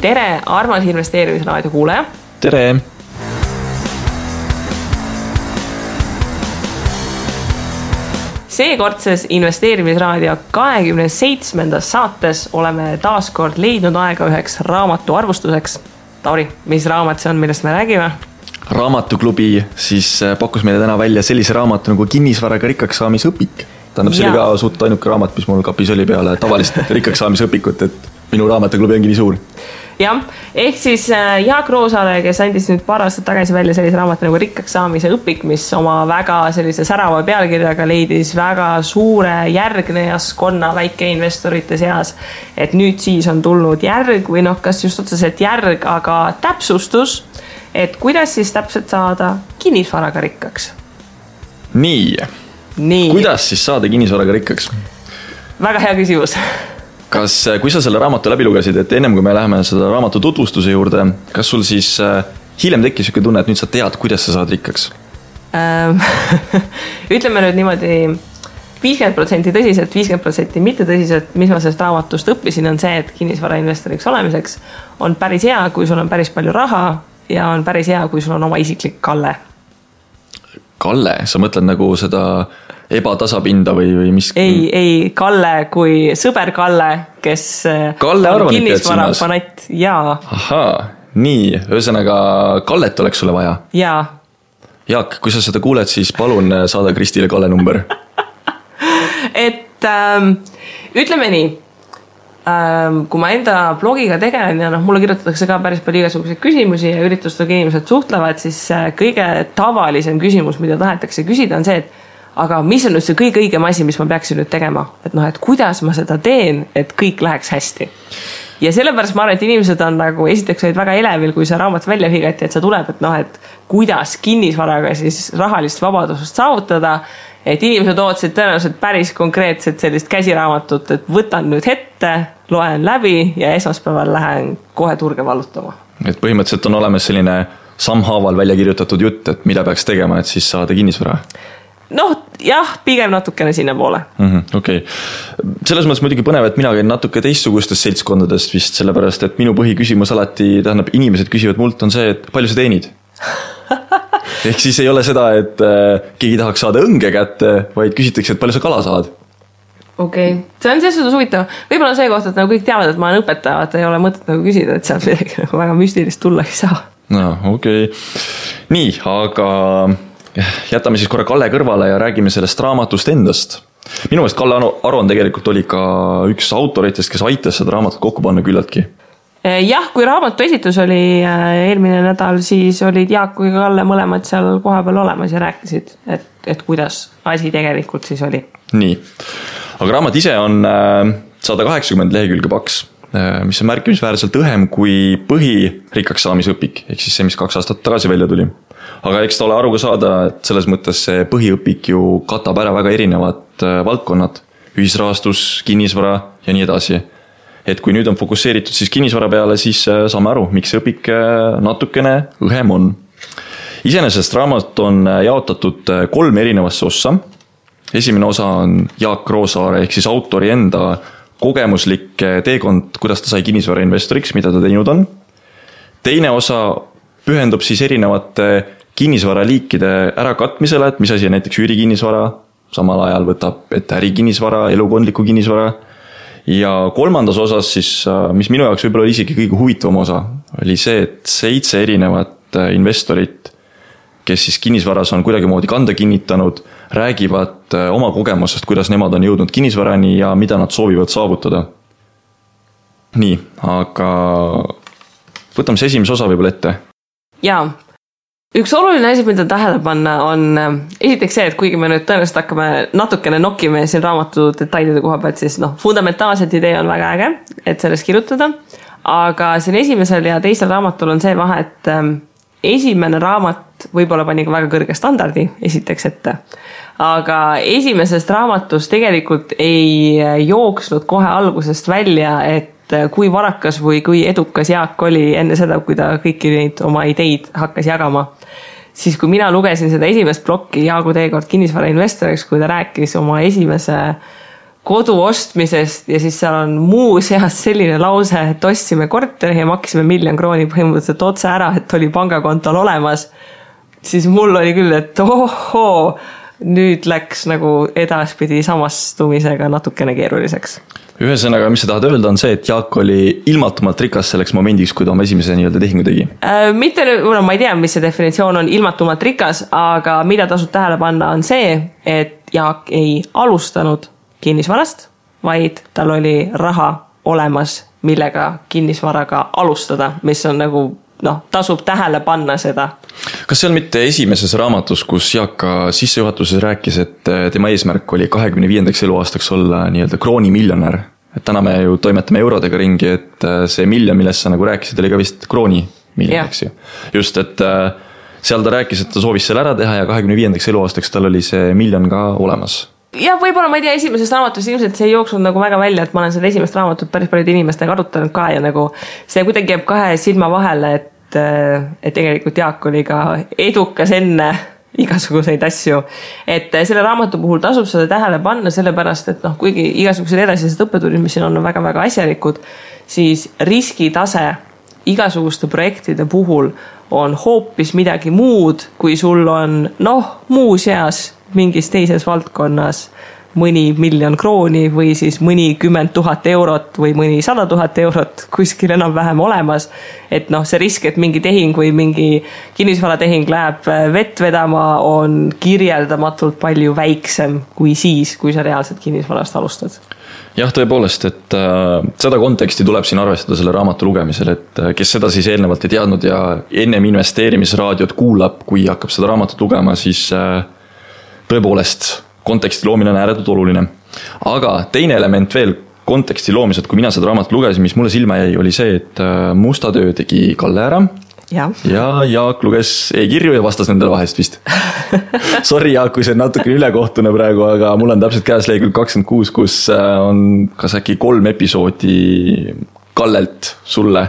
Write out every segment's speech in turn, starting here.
tere, armas investeerimisraadio kuulaja. Tere! Seekordses investeerimisraadio 27. saates oleme taas kord leidnud aega üheks raamatu arvustuseks. Tauri, mis raamat see on, millest me räägime? Raamatuklubi siis pakkus meile täna välja sellise raamatu nagu kinnisvaraga rikkaks saamise õpik. Tähendab, see oli ka suht ainuke raamat, mis mul kapis oli peale tavalist rikkaks saamise õpikut, et minu raamatuklubi ongi nii suur. Jah, ehk siis Jaak Roosaare, kes andis nüüd paar aastat tagasi välja sellise raamat nagu rikkaks saamise õpik, mis oma väga sellise särava pealkirjaga leidis väga suure järgnejaskonna väikeinvestorite seas. Et nüüd siis on tulnud järg või kas just otseselt järg, aga täpsustus, et kuidas siis täpselt saada kinnisvaraga rikkaks? Nii. Kuidas siis saada kinnisvaraga rikkaks? Väga hea küsimus. Kui sa selle raamatu läbi lugesid, et ennem kui me läheme seda raamatu tutvustuse juurde, kas sul siis hiljem tekkis siuke tunne, et nüüd sa tead, kuidas sa saad rikkaks? Ütleme nüüd niimoodi 50% tõsiselt, 50% mitte tõsiselt, mis ma sellest raamatust õppisin, on see, et kinnisvarainvestoriks olemiseks on päris hea, kui sul on päris palju raha ja on päris hea, kui sul on oma isiklik Kalle. Kalle? Sa mõtled nagu seda ebatasapinda või mis? Ei, Kalle kui sõber Kalle, kes Kalle on kinnisvara fanatt. Jaa. Ahaa, nii. Ühesõnaga, Kallet oleks sulle vaja? Jaa. Jaak, kui sa seda kuuled, siis palun saada Kristile Kalle number. Et ütleme nii, kui ma enda blogiga tegelen ja mulle kirjutatakse ka päris palju igasuguseid küsimusi ja üritustega inimesed suhtlevad, siis kõige tavalisem küsimus, mida tahetakse küsida, on see, et aga mis on nüüd see kõige õigem asi, mis ma peaksin nüüd tegema? Et kuidas ma seda teen, et kõik läheks hästi? Ja sellepärast ma arvan, et inimesed on nagu esiteks olid väga elevil, kui see raamat välja higati, et see tuleb, et kuidas kinnisvaraga siis rahalist vabadusest saavutada, et inimesed ootasid tõenäoliselt päris konkreetselt sellist käsiraamatut, et võtan nüüd ette, loen läbi ja esmaspäeval lähen kohe turge vallutama. Et põhimõtteliselt on olemas selline sammhaaval välja kirjutatud jutt, et mida peaks tegema, et siis saada kinnisvara? Jah, pigem natukene sinna poole. Okei. Selles mõttes muidugi põnev, et mina käin natuke teistsugustest seltskondadest vist, sellepärast, et minu põhiküsimus alati, tähendab, inimesed küsivad mult on see, et palju sa teenid? Ehk siis ei ole seda, et keegi tahaks saada õnge kätte, vaid küsitakse, et palju sa kala saad? Okei. See on selles suhtes huvitav. Võib-olla see koht, et kõik teavad, et ma olen õpetaja, et ei ole mõtet küsida, et sealt midagi väga müstilist tulla ei saa. Okei. Nii, aga jätame siis korra Kalle kõrvale ja räägime sellest raamatust endast. Minu meelest Kalle Aron tegelikult oli ka üks autoritest, kes aitas seda raamatut kokku panna küllaltki. Jah, kui raamatu esitus oli eelmine nädal, siis olid Jaak kui Kalle mõlemad seal koha peal olemas ja rääkisid, et kuidas asi tegelikult siis oli. Nii, aga raamat ise on 180 lehekülge paks, mis on märkimisväärselt õhem kui põhirikkaks saamise õpik, ehk siis see, mis 2 aastat tagasi välja tuli. Aga eks ta ole aru ka saada, et selles mõttes see põhiõpik ju katab ära väga erinevad valdkonnad, ühisrahastus, kinnisvara ja nii edasi. Et kui nüüd on fokusseeritud siis kinnisvara peale, siis saame aru, miks see õpik natukene õhem on. Iseenesest raamat on jaotatud 3 erinevasse ossa. Esimene osa on Jaak Roosaare ehk siis autori enda kogemuslik teekond, kuidas ta sai kinnisvara investoriks, mida ta teinud on. Teine osa pühendub siis erinevate kinnisvaraliikide ärakatmisele, et mis asi on näiteks üürikinnisvara, samal ajal võtab ette ärikinnisvara, elukondliku kinnisvara. Ja 3. osas siis, mis minu jaoks võib-olla oli isegi kõige huvitavam osa, oli see, et 7 erinevat investorit, kes siis kinnisvaras on kuidagi moodi kanda kinnitanud, räägivad oma kogemusest, kuidas nemad on jõudnud kinnisvarani ja mida nad soovivad saavutada. Nii, aga võtame see esimese osa võib-olla ette. Jaa, üks oluline asi, mida tähele panna on esiteks see, et kuigi me nüüd tõenäoliselt hakkame natukene nokkime siin raamatu detailide koha pealt, siis fundamentaalselt idee on väga äge, et sellest kirjutada, aga siin esimesel ja teisel raamatul on see vahe, et esimene raamat võib-olla pani ka väga kõrge standardi esiteks ette, aga esimesest raamatust tegelikult ei jooksnud kohe algusest välja, et kui varakas või kui edukas Jaak oli enne seda, kui ta kõiki neid oma ideid hakkas jagama. Siis kui mina lugesin seda esimest plokki Jaagu teekord kinnisvara investoriks, kui ta rääkis oma esimese kodu ostmisest ja siis seal on muuseas selline lause, et ostsime korteri ja maksime 1 000 000 krooni põhimõtteliselt otse ära, et oli pangakontol olemas, siis mul oli küll, et ohoo, nüüd läks nagu edaspidi samastumisega natukene keeruliseks. Ühesõnaga, mis sa tahad öelda, on see, et Jaak oli ilmatumalt rikas selleks momendiks, kui ta oma esimese nii-öelda tehingu tegi? Mitte, ma ei tea, mis see definitsioon on ilmatumalt rikas, aga mida tasub tähele panna on see, et Jaak ei alustanud kinnisvarast, vaid tal oli raha olemas, millega kinnisvaraga alustada, mis on nagu tasub tähele panna seda. Kas see on mitte esimeses raamatus, kus Jaak ka sissejuhatuses rääkis, et tema eesmärk oli 25. eluaastaks olla nii-öelda kroonimiljonär? Et täna me ju toimetame eurodega ringi, et see miljon, millest sa nagu rääkisid, oli ka vist kroonimiljon, eks ju. Just, et seal ta rääkis, et ta soovis selle ära teha ja 25. eluaastaks tal oli see miljon ka olemas. Ja võib-olla ma ei tea esimesest raamatust, ilmselt see ei jooksnud nagu väga välja, et ma olen seda esimest raamatut päris paljude inimestega arutanud ka ja nagu see kuidagi jääb 2 silma vahele, et tegelikult Jaak oli ka edukas enne igasuguseid asju. Et selle raamatu puhul tasub seda tähele panna sellepärast, et kuigi igasugused edasised õppetunnid, mis siin on väga-väga asjalikud, siis riskitase igasuguste projektide puhul on hoopis midagi muud, kui sul on muuseas mingis teises valdkonnas mõni 1 000 000 krooni või siis mõni 10 000 eurot või mõni 100 000 eurot kuskil enam-vähem olemas. Et see risk, et mingi tehing või mingi kinnisvaratehing läheb vett vedama, on kirjeldamatult palju väiksem kui siis, kui sa reaalselt kinnisvarast alustad. Jah, tõepoolest, et seda konteksti tuleb siin arvestada selle raamatu lugemisel, et kes seda siis eelnevalt ei teadnud ja ennem investeerimisraadiot kuulab, kui hakkab seda raamatut lugema, siis tõepoolest konteksti loomine on ääretult oluline. Aga teine element veel konteksti loomised, kui mina seda raamatut lugesin, mis mulle silma jäi, oli see, et musta töö tegi Kalle ära ja Jaak luges e-kirju ja vastas nendele vahest vist. Sorry Jaak, kui see on natuke ülekohtune praegu, aga mul on täpselt käes lehekülg 26, kus on kas äkki 3 episoodi Kallelt sulle,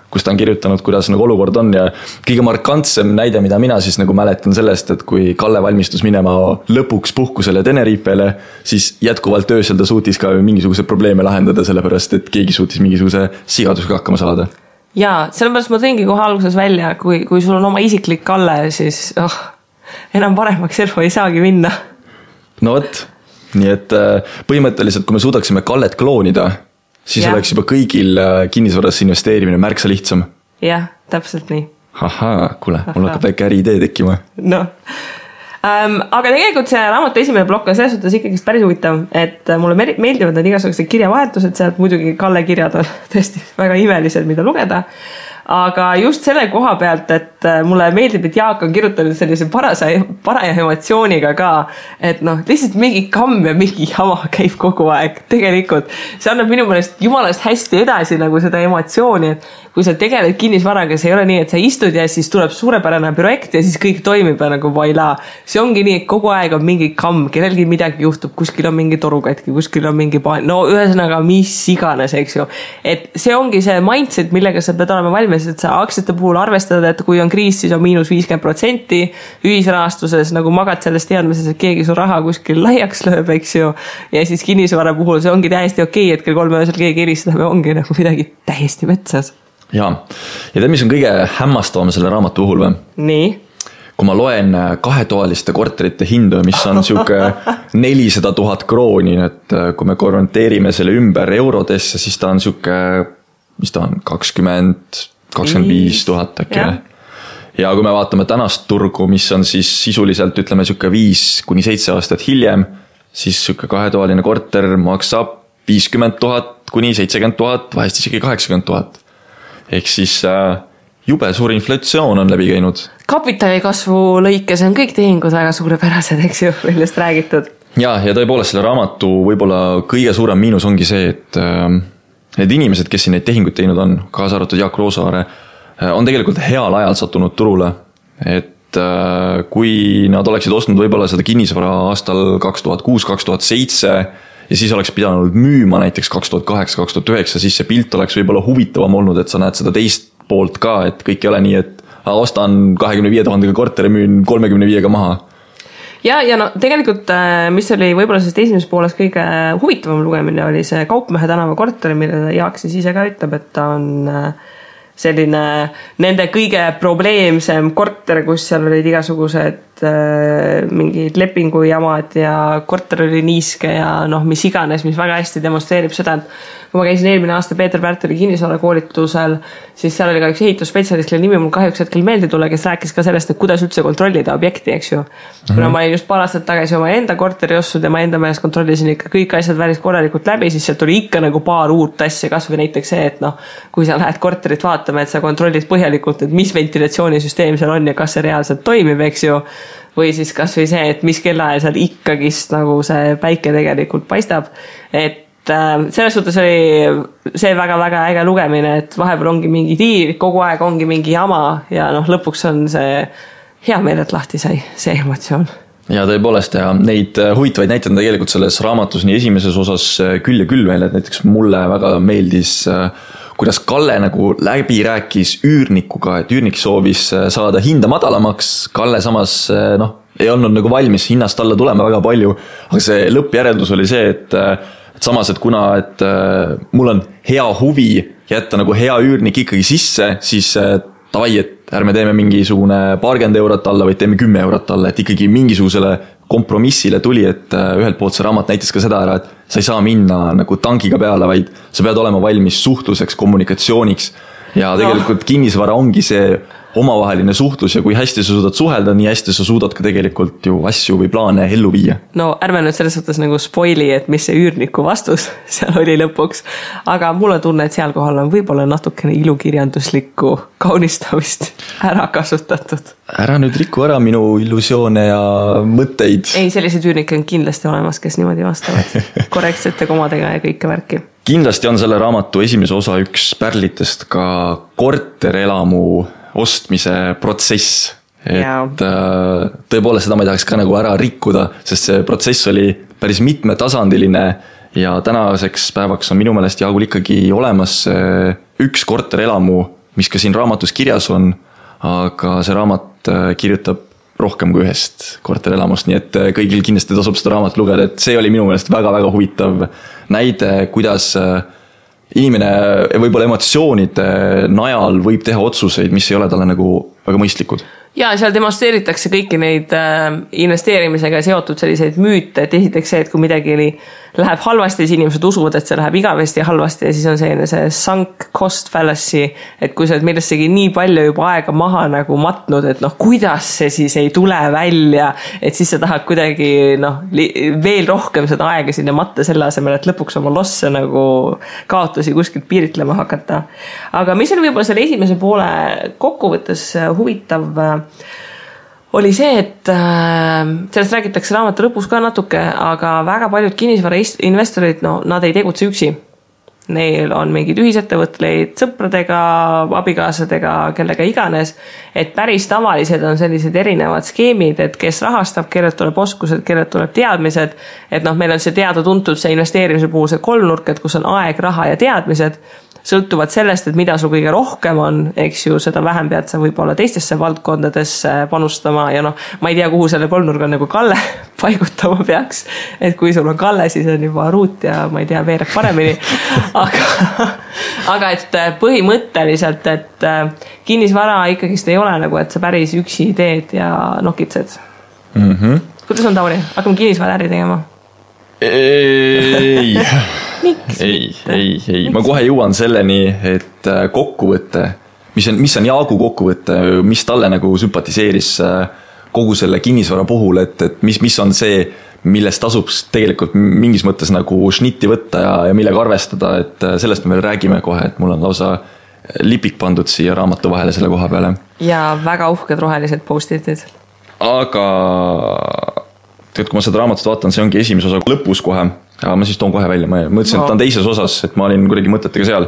kus ta on kirjutanud, kuidas nagu olukord on ja kõige markantsem näide, mida mina siis nagu mäletan sellest, et kui Kalle valmistus minema lõpuks puhkusele Tenerifele, siis jätkuvalt öösel ta suutis ka mingisuguse probleeme lahendada, sellepärast et keegi suutis mingisuguse sigadusega hakkama saada. Jaa, sellepärast ma tõingi kohe alguses välja, kui sul on oma isiklik Kalle, siis enam paremaks elu ei saagi minna. No võt, nii et põhimõtteliselt, kui me suudaksime Kallet kloonida, siis oleks juba kõigil kinnisvarasse investeerimine märksa lihtsam. Jah, täpselt nii. Ahaa, kuule, mul hakkab väike äriidee tekkima. Aga tegelikult see raamatu esimene plokk on selles suhtes ikkagi päris huvitav, et mulle meeldivad need igasugused kirjavahetused, sealt muidugi Kalle kirjad on tõesti väga imelised, mida lugeda. Aga just selle koha pealt, et mulle meeldib, et Jaak on kirjutanud sellise paraja emotsiooniga ka, et lihtsalt mingi kamm ja mingi jama käib kogu aeg. Tegelikult see annab minu meelest jumalast hästi edasi nagu seda emotsiooni, et kui sa tegeled kinnisvaraga, see ei ole nii, et sa istud ja siis tuleb suurepärane projekt ja siis kõik toimib ja nagu vaila. See ongi nii, et kogu aeg on mingi kamm, kellelgi midagi juhtub, kuskil on mingi torukatki, kuskil on mingi ühesõnaga mis iganes, eks ju. Et see ongi see mindset, millega sa pead olema valmis, et sa aktsiate puhul arvestad, et kui on kriis, siis on -50%, ühisrahastuses nagu magad sellest teadmises, et keegi su raha kuskil laiaks lööb, eks ju. Ja siis kinnisvara puhul see ongi täiesti okei, et kell 3 öösel keegi helistab ja ongi nagu midagi täiesti metsas. Jaa, ja tead, mis on kõige hämmastavam selle raamatu puhul või? Nii? Kui ma loen 2-toaliste korterite hindu, mis on siuke 400 000 krooni, et kui me konverteerime selle ümber eurodesse, siis ta on siuke, mis ta on, 25 000 äkki. Ja kui me vaatame tänast turgu, mis on siis sisuliselt, ütleme, siuke 5-7 aastat hiljem, siis siuke 2-toaline korter maksab 50 000 kuni 70 000, vahest isegi 80 000. Ehk siis jube suur inflatsioon on läbi käinud. Kapitalikasvu lõikes on kõik tehingud väga suurepärased, eks ju, millest räägitud. Ja tõepoolest selle raamatu võib-olla kõige suurem miinus ongi see, et need inimesed, kes siin neid tehinguid teinud on, kaasa arvatud Jaak Roosaare, on tegelikult heal ajal sattunud turule. Et kui nad oleksid ostnud võib-olla seda kinnisvara aastal 2006-2007 ja siis oleks pidanud müüma näiteks 2008-2009, siis see pilt oleks võib-olla huvitavam olnud, et sa näed seda teist poolt ka, et kõik ei ole nii, et ostan 25 000 korteri, müün 35 maha. ja no tegelikult, mis oli võib-olla sellest esimeses pooles kõige huvitavam lugemine, oli see Kaupmehe tänava korter, mille Jaak siis ise ka ütleb, et ta on selline nende kõige probleemsem korter, kus seal olid igasugused mingid lepingujamad ja korter oli niiske ja noh, mis iganes, mis väga hästi demonstreerib seda, et kui ma käisin eelmine aasta Peeter Pärteli kinnisvara koolitusel, siis seal oli ka üks ehitusspetsialist, kelle nimi mul kahjuks hetkel meelde tule, kes rääkis ka sellest, et kuidas üldse kontrollida objekti, eks ju. Kuna ma olin just paar aastat tagasi oma enda korteri ostud ja ma enda meelest kontrollisin ikka kõik asjad välis korralikult läbi, siis sealt tuli ikka nagu paar uut asja, kas või näiteks see, et noh, kui sa lähed korterit vaatama, et sa kontrollid põhjalikult, et mis ventilatsioonisüsteem seal on ja kas see reaalselt toimib, eks ju. Või siis kas või see, et mis kellaajal seal ikkagist nagu see päike tegelikult paistab, et selles suhtes oli see väga-väga äge lugemine, et vahepeal ongi mingi tiir, kogu aeg ongi mingi jama ja noh, lõpuks on see hea meel, et lahti sai see emotsioon. Ja tõepoolest ja neid huvitavaid näiteid on tegelikult selles raamatus nii esimeses osas küll ja küll veel, et näiteks mulle väga meeldis, kuidas Kalle nagu läbi rääkis üürnikuga, et üürnik soovis saada hinda madalamaks, Kalle samas ei olnud nagu valmis hinnast alla tulema väga palju, aga see lõppjäreldus oli see, et samas, et kuna et mul on hea huvi jätta nagu hea üürnik ikkagi sisse, siis tavai, et ärme teeme mingisugune 20 eurot alla, vaid teeme 10 eurot alla, et ikkagi mingisugusele kompromissile tuli, et ühelt poolt see raamat näitas ka seda ära, et sa ei saa minna nagu tangiga peale, vaid sa pead olema valmis suhtluseks, kommunikatsiooniks ja tegelikult kinnisvara ongi see omavaheline suhtlus ja kui hästi sa suudad suhelda, nii hästi sa suudad ka tegelikult ju asju või plaane ellu viia. No ärme nüüd selles suhtes nagu spoili, et mis see üürniku vastus seal oli lõpuks, aga mulle tunne, et seal kohal on võib-olla natukene ilukirjanduslikku kaunistamist ära kasutatud. Ära nüüd riku ära minu illusioone ja mõtteid. Ei, sellised üürnikke on kindlasti olemas, kes niimoodi vastavad korrektsete komadega ja kõike värki. Kindlasti on selle raamatu esimese osa üks pärlitest ka korterelamu ostmise protsess, et tõepoolest seda ma ei tahaks ka nagu ära rikkuda, sest see protsess oli päris mitmetasandiline ja tänaseks päevaks on minu meelest Jaagul ikkagi olemas üks korterelamu, mis ka siin raamatus kirjas on, aga see raamat kirjutab rohkem kui ühest korterelamust, nii et kõigil kindlasti tasub seda raamat lugeda, et see oli minu meelest väga-väga huvitav näide, kuidas inimene võib-olla emotsioonide najal võib teha otsuseid, mis ei ole talle nagu väga mõistlikud. Ja seal demonstreeritakse kõiki neid investeerimisega seotud selliseid müüte, et esiteks see, et kui midagi läheb halvasti, siis inimesed usuvad, et see läheb igavesti halvasti ja siis on see sunk cost fallacy, et kui sa oled millessegi nii palju juba aega maha nagu matnud, et noh, kuidas see siis ei tule välja, et siis sa tahad kuidagi veel rohkem seda aega sinna matta selle asemel, et lõpuks oma losse nagu kaotusi kuskilt piiritlema hakata. Aga mis oli võib-olla selle esimese poole kokkuvõttes huvitav, oli see, et sellest räägitakse raamatu lõpus ka natuke, aga väga paljud kinnisvarainvestorid, nad ei tegutse üksi. Neil on mingid ühisettevõtleid sõpradega, abikaasadega, kellega iganes, et päris tavalised on sellised erinevad skeemid, et kes rahastab, kellelt tuleb oskused, kellelt tuleb teadmised, et meil on see teada-tuntud see investeerimise puhul see kolmnurk, et kus on aeg, raha ja teadmised, sõltuvad sellest, et mida sul kõige rohkem on, eks ju, seda vähem pead sa võib-olla teistesse valdkondadesse panustama ja ma ei tea, kuhu selle kolmnurga nagu Kalle paigutama peaks, et kui sul on Kalle, siis on juba Ruut ja ma ei tea, veereb paremini, aga et põhimõtteliselt, et kinnisvara ikkagist ei ole nagu, et sa päris üksi teed ja nokitsed. Kuidas on, Tauri? Hakkame kinnisvara äri tegema? Ei. Ma kohe jõuan selleni, et kokkuvõte, mis on Jaagu kokkuvõte, mis talle nagu sümpatiseeris kogu selle kinnisvara puhul, et mis on see, millest tasub tegelikult mingis mõttes nagu šnitti võtta ja millega arvestada, et sellest me veel räägime kohe, et mul on lausa lipik pandud siia raamatu vahele selle koha peale. Ja väga uhked rohelised post-itid. Aga kui ma seda raamatut vaatan, see ongi esimese osa lõpus kohe, aga ma siis toon kohe välja, ma mõtlesin, et ta on teises osas, et ma olin kuidagi mõtetega seal.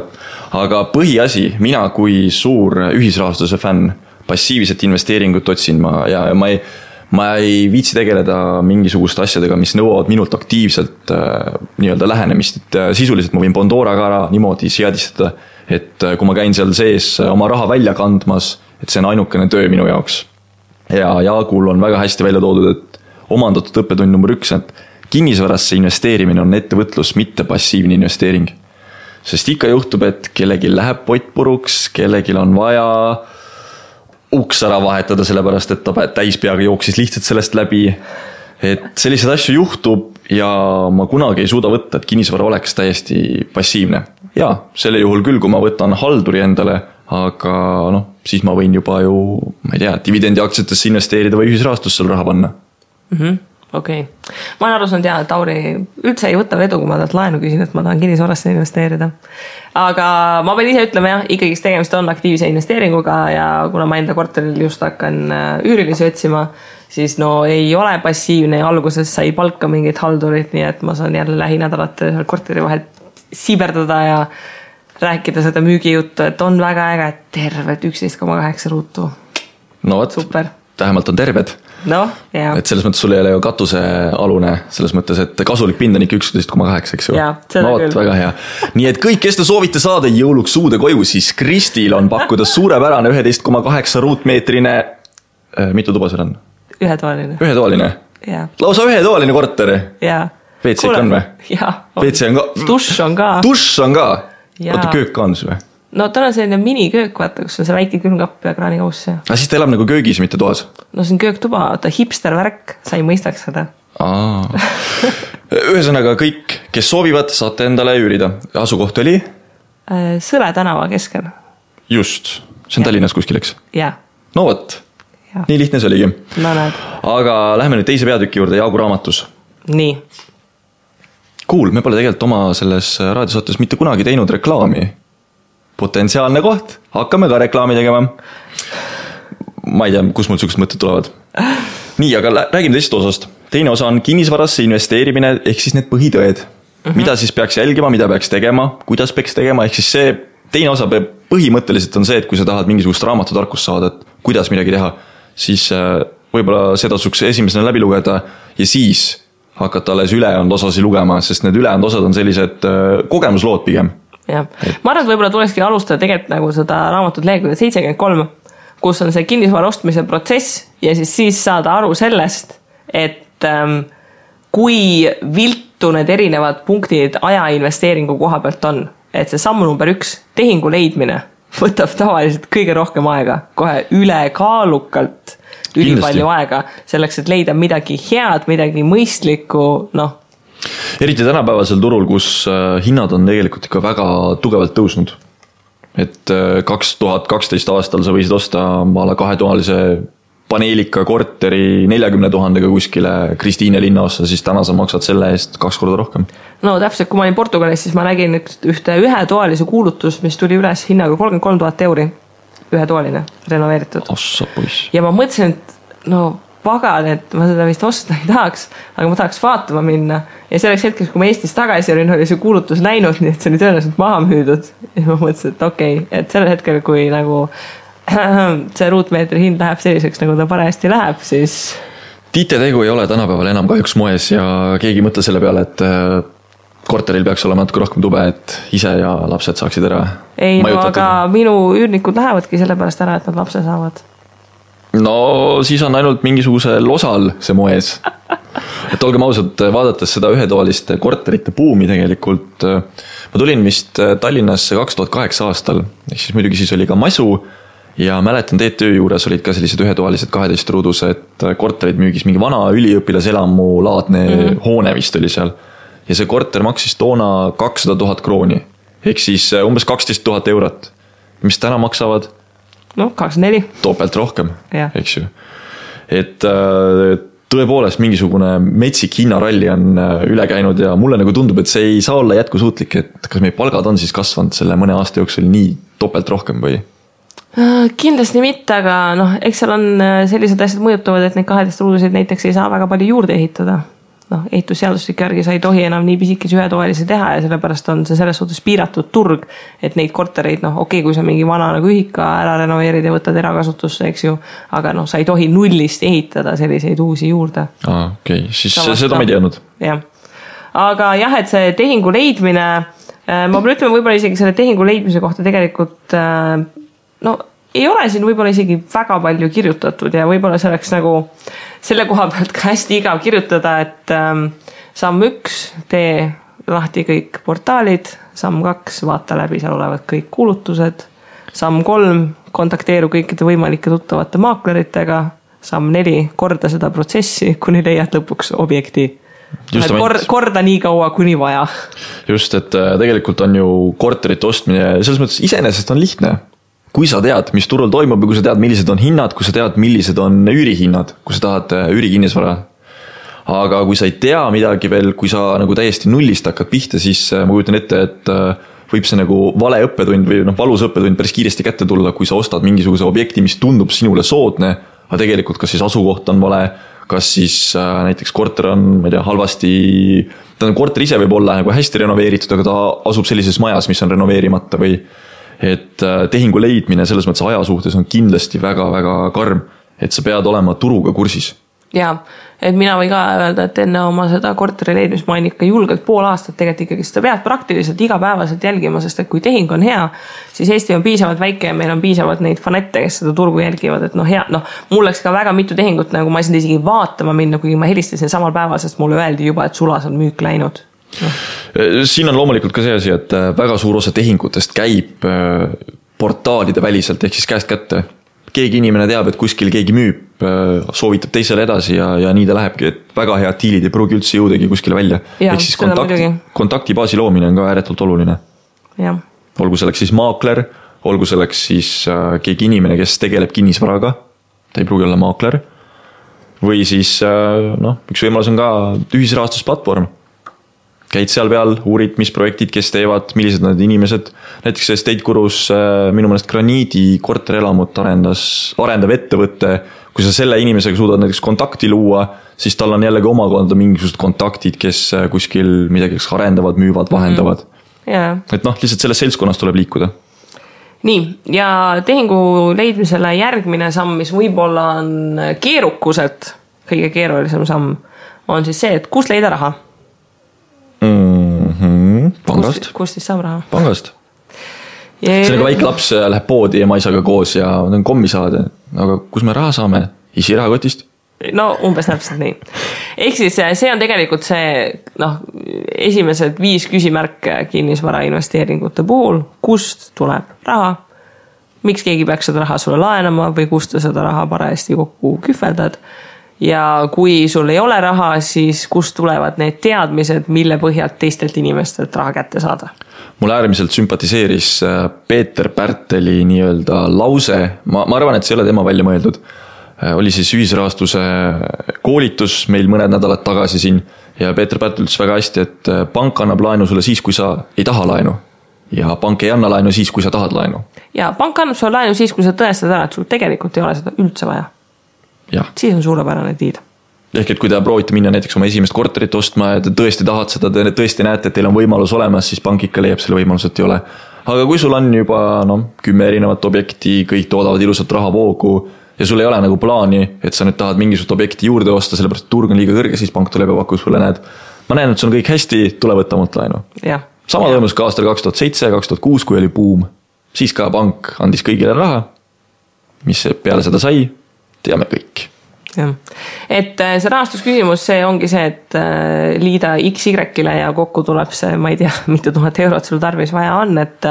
Aga põhiasi, mina kui suur ühisrahastuse fänn, passiivset investeeringut otsin ja ma ei viitsi tegeleda mingisuguste asjadega, mis nõuavad minult aktiivselt nii-öelda lähenemist, et sisuliselt ma võin Pandora ka ära niimoodi seadistada, et kui ma käin seal sees oma raha välja kandmas, et see on ainukene töö minu jaoks. Ja Jaagul on väga hästi välja toodud, et omandatud õppetund number 1, et kinnisvarasse investeerimine on ettevõtlus, mitte passiivne investeering. Sest ikka juhtub, et kellegi läheb pott puruks, kellegi on vaja uks ära vahetada, sellepärast et ta täispeaga jooksis lihtsalt sellest läbi. Et selliseid asju juhtub ja ma kunagi ei suuda võtta, et kinnisvara oleks täiesti passiivne. Ja, selle juhul küll, kui ma võtan halduri endale, aga siis ma võin juba ju, ma ei tea, dividendi aktsiatesse investeerida või ühisrahastusse raha panna. Okei. Ma olen aru saanud et Tauri üldse ei võta vedu, kui ma talt laenu küsin, et ma tahan kinnisvarasse investeerida. Aga ma pean ise ütlema ikkagi tegemist on aktiivse investeeringuga ja kuna ma enda korteril just hakkan üürilisi otsima, siis ei ole passiivne ja alguses sai palka mingid haldurid, nii et ma saan jälle lähinädalate korteri vahelt siberdada ja rääkida seda müügijuttu, et on väga äge, terved 11,8 ruutu. No võt, super. Vähemalt on terved. Ja. Et selles mõttes sul ei ole ju katusealune, selles mõttes, et kasulik pind on ikka 11,8, eks ju. No võt, väga hea. Nii et kõik, kes te soovite saada jõuluks uude koju, siis Kristil on pakkuda suurepärane 11,8 ruutmeetrine, mitu tuba seal on? Ühetoaline. Lausa ühetoaline korter. WC on või? WC on ka. Dušš on ka. Oota, köök ka on sul või? No tal on selline miniköök, vaata, kus on see väike külmkapp ja kraanikauss. Aga siis ta elab nagu köögis, mitte toas? No see on kööktuba, ta hipster värk, sa ei mõistaks seda. Ühesõnaga kõik, kes soovivad, saate endale üürida. Asukoht oli? Sõle tänava keskel. Just, see on Tallinnas kuskil, eks? Jaa. No võt, nii lihtne see oligi. No näed. Aga lähme nüüd teise peatüki juurde, Jaagu raamatus. Nii. Cool, me pole tegelikult oma selles raadiosaates mitte kunagi teinud reklaami. Potentsiaalne koht, hakkame ka reklaami tegema. Ma ei tea, kus mul sellised mõtted tulevad. Nii, aga räägime teisest osast. Teine osa on kinnisvarasse investeerimine, ehk siis need põhitõed. Mida siis peaks jälgima, mida peaks tegema, kuidas peaks tegema, ehk siis see teine osa põhimõtteliselt on see, et kui sa tahad mingisugust raamatutarkust saada, et kuidas midagi teha, siis võib-olla seda tasuks esimesena läbi lugeda ja siis hakata alles ülejäänud osasi lugema, sest need ülejäänud osad on sellised kogemuslood pigem. Ja. Ma arvan, et võib-olla tuleski alustada tegelikult nagu seda raamatut lehekülge 73, kus on see kinnisvara ostmise protsess ja siis saada aru sellest, et kui viltu need erinevad punktid ajainvesteeringu koha pealt on, et see samm number 1, tehingu leidmine, võtab tavaliselt kõige rohkem aega, kohe ülekaalukalt ülipalju aega, selleks, et leida midagi head, midagi mõistlikku, Eriti tänapäevasel turul, kus hinnad on tegelikult ikka väga tugevalt tõusnud. Et 2012 aastal sa võisid osta maala 2-toalise paneelika korteri 40 000 kuskile Kristiine linnaossa, siis täna sa maksad selle eest 2 korda rohkem. No täpselt, kui ma olin Portugalis, siis ma nägin ühetoalise kuulutus, mis tuli üles hinnaga 33 000 euri. Ühetoaline, renoveeritud. Ja ma mõtlesin, et pagan, et ma seda vist osta ei tahaks, aga ma tahaks vaatama minna. Ja selleks hetkeks, kui ma Eestis tagasi olin, oli see kuulutus näinud, nii et see oli tõenäoliselt maha müüdud. Ja ma mõtlesin, et okei, et sellel hetkel, kui nagu see ruutmeetri hind läheb selliseks, nagu ta parajasti läheb, siis... Tiite-tegu ei ole tänapäeval enam kahjuks moes ja keegi mõtle selle peale, et korteril peaks olema natuke rohkem tube, et ise ja lapsed saaksid ära. Ei, aga minu üürnikud lähevadki selle pärast ära, et nad lapse saavad. No siis on ainult mingisugusel osal see moes. Et olgem ausad, vaadates seda ühetoaliste korterite buumi tegelikult, ma tulin vist Tallinnasse 2008 aastal, ehk siis muidugi siis oli ka masu ja mäletan TTÜ juures olid ka sellised ühetoalised 12 ruudused korterid müügis, mingi vana üliõpilaselamu laadne hoone vist oli seal ja see korter maksis toona 200 000 krooni, ehk siis umbes 12 000 eurot, mis täna maksavad 24. Topelt rohkem, eks ju. Et tõepoolest mingisugune metsik hinnaralli on üle käinud ja mulle nagu tundub, et see ei saa olla jätkusuutlik, et kas meie palgad on siis kasvanud selle mõne aasta jooksul nii topelt rohkem või? Kindlasti mitte, aga eks seal on sellised asjad mõjutavad, et neid 12 ruudusid näiteks ei saa väga palju juurde ehitada. Ehitusseadustik järgi sa ei tohi enam nii pisikesi ühetoalisi teha ja sellepärast on see selles suhtes piiratud turg, et neid kortereid, okei, kui sa mingi vana nagu ühika ära renoveerid ja võtad erakasutusse, eks ju, aga sa ei tohi nullist ehitada selliseid uusi juurde. Okei, siis seda ma ei teadnud. Jah. Aga jah, et see tehingu leidmine, ma pean ütlema võib-olla isegi selle tehingu leidmise kohta tegelikult, ei ole siin võib-olla isegi väga palju kirjutatud ja võib-olla see oleks nagu selle koha pealt ka hästi igav kirjutada, et samm 1, tee lahti kõik portaalid, samm 2, vaata läbi seal olevad kõik kuulutused, samm 3, kontakteeru kõikide võimalike tuttavate maakleritega, samm 4, korda seda protsessi, kuni leiad lõpuks objekti. Korda nii kaua, kuni vaja. Just, et tegelikult on ju korterite ostmine, selles mõttes iseenesest on lihtne. Kui sa tead, mis turul toimub ja kui sa tead, millised on hinnad, kui sa tead, millised on üürihinnad, kui sa tahad üürikinnisvara. Aga kui sa ei tea midagi veel, kui sa nagu täiesti nullist hakkad pihta, siis ma kujutan ette, et võib see nagu vale õppetund või valus õppetund päris kiiresti kätte tulla, kui sa ostad mingisuguse objekti, mis tundub sinule soodne, aga tegelikult kas siis asukoht on vale, kas siis näiteks korter on, ma ei tea, halvasti, korter ise võib olla nagu hästi renoveeritud, aga ta asub sellises majas, mis on renoveerimata või et tehingu leidmine selles mõttes aja suhtes on kindlasti väga-väga karm, et sa pead olema turuga kursis. Jaa, et mina või ka öelda, et enne oma seda korteri leidmist ma olen ikka julgelt pool aastat tegelikult ikkagi seda pead praktiliselt igapäevaselt jälgima, sest et kui tehing on hea, siis Eesti on piisavalt väike ja meil on piisavalt neid fanette, kes seda turgu jälgivad, et mul läks ka väga mitu tehingut, nagu ma ei saanud isegi vaatama minna, kuigi ma helistasin samal päeval, sest mulle öeldi juba, et sulas on müük läinud. Siin on loomulikult ka see asi, et väga suur osa tehingutest käib portaalide väliselt ehk siis käest kätte. Keegi inimene teab, et kuskil keegi müüb, soovitab teisele edasi ja nii ta lähebki, et väga head diilid ei pruugi üldse jõudagi kuskile välja. Ehk siis kontaktibaasi loomine on ka ääretult oluline. Ja. Olgu selleks siis maakler, olgu selleks siis keegi inimene, kes tegeleb kinnisvaraga, ta ei pruugi olla maakler, või siis üks võimalus on ka ühisrahastusplatvorm. Käid seal peal, uurid, mis projektid, kes teevad, millised need inimesed. Näiteks Estate Gurus minu mõnest Graniidi korterelamut arendav ettevõtte. Kui sa selle inimesega suudad näiteks kontakti luua, siis tal on jällegi omakonda mingisugused kontaktid, kes kuskil midagi arendavad, müüvad, vahendavad. Et lihtsalt selles seltskonnas tuleb liikuda. Nii, ja tehingu leidmisele järgmine samm, mis võib-olla on keerukuselt kõige keerulisem samm, on siis see, et kus leida raha? Pangast. Kust siis saab raha? Pangast. See on nagu väike laps läheb poodi ja maisaga koos ja on kommi saada. Aga kus me raha saame? Isi rahakotist? No umbes täpselt nii. Ehk siis see on tegelikult see esimesed 5 küsimärke kinnisvara investeeringute puhul. Kust tuleb raha? Miks keegi peaks seda raha sulle laenama või kust sa seda raha parajasti kokku kühveldad? Ja kui sul ei ole raha, siis kust tulevad need teadmised, mille põhjalt teistelt inimestelt raha kätte saada? Mulle äärmiselt sümpatiseeris Peeter Pärteli nii-öelda lause. Ma arvan, et see ei ole tema välja mõeldud. Oli siis ühisrahastuse koolitus meil mõned nädalad tagasi siin ja Peeter Pärtel ütles väga hästi, et pank annab laenu sulle siis, kui sa ei taha laenu ja pank ei anna laenu siis, kui sa tahad laenu. Ja pank annab sulle laenu siis, kui sa tõestad ära, et sul tegelikult ei ole seda üldse vaja. Ja. Siis on suurepärane diil. Ehk et kui te proovite minna näiteks oma esimest korterit ostma ja te tõesti tahad seda, te tõesti näete, et teil on võimalus olemas, siis pank ikka leiab selle võimalus, et ei ole. Aga kui sul on juba 10 erinevat objekti, kõik toodavad ilusat rahavoogu ja sul ei ole nagu plaani, et sa nüüd tahad mingisugust objekti juurde osta, sellepärast turg on liiga kõrge, siis pank tuleb ja pakub sulle, näed. Ma näen, et sul on kõik hästi, tule võtta mult laenu. Sama toimus ka aastal 2007-2006, kui oli buum. Siis ka pank andis kõigile raha, mis peale seda sai, teame kõik. Ja. Et see rahastusküsimus, see ongi see, et liida XY-le ja kokku tuleb see, ma ei tea, mitu tuhat eurot sul tarvis vaja on, et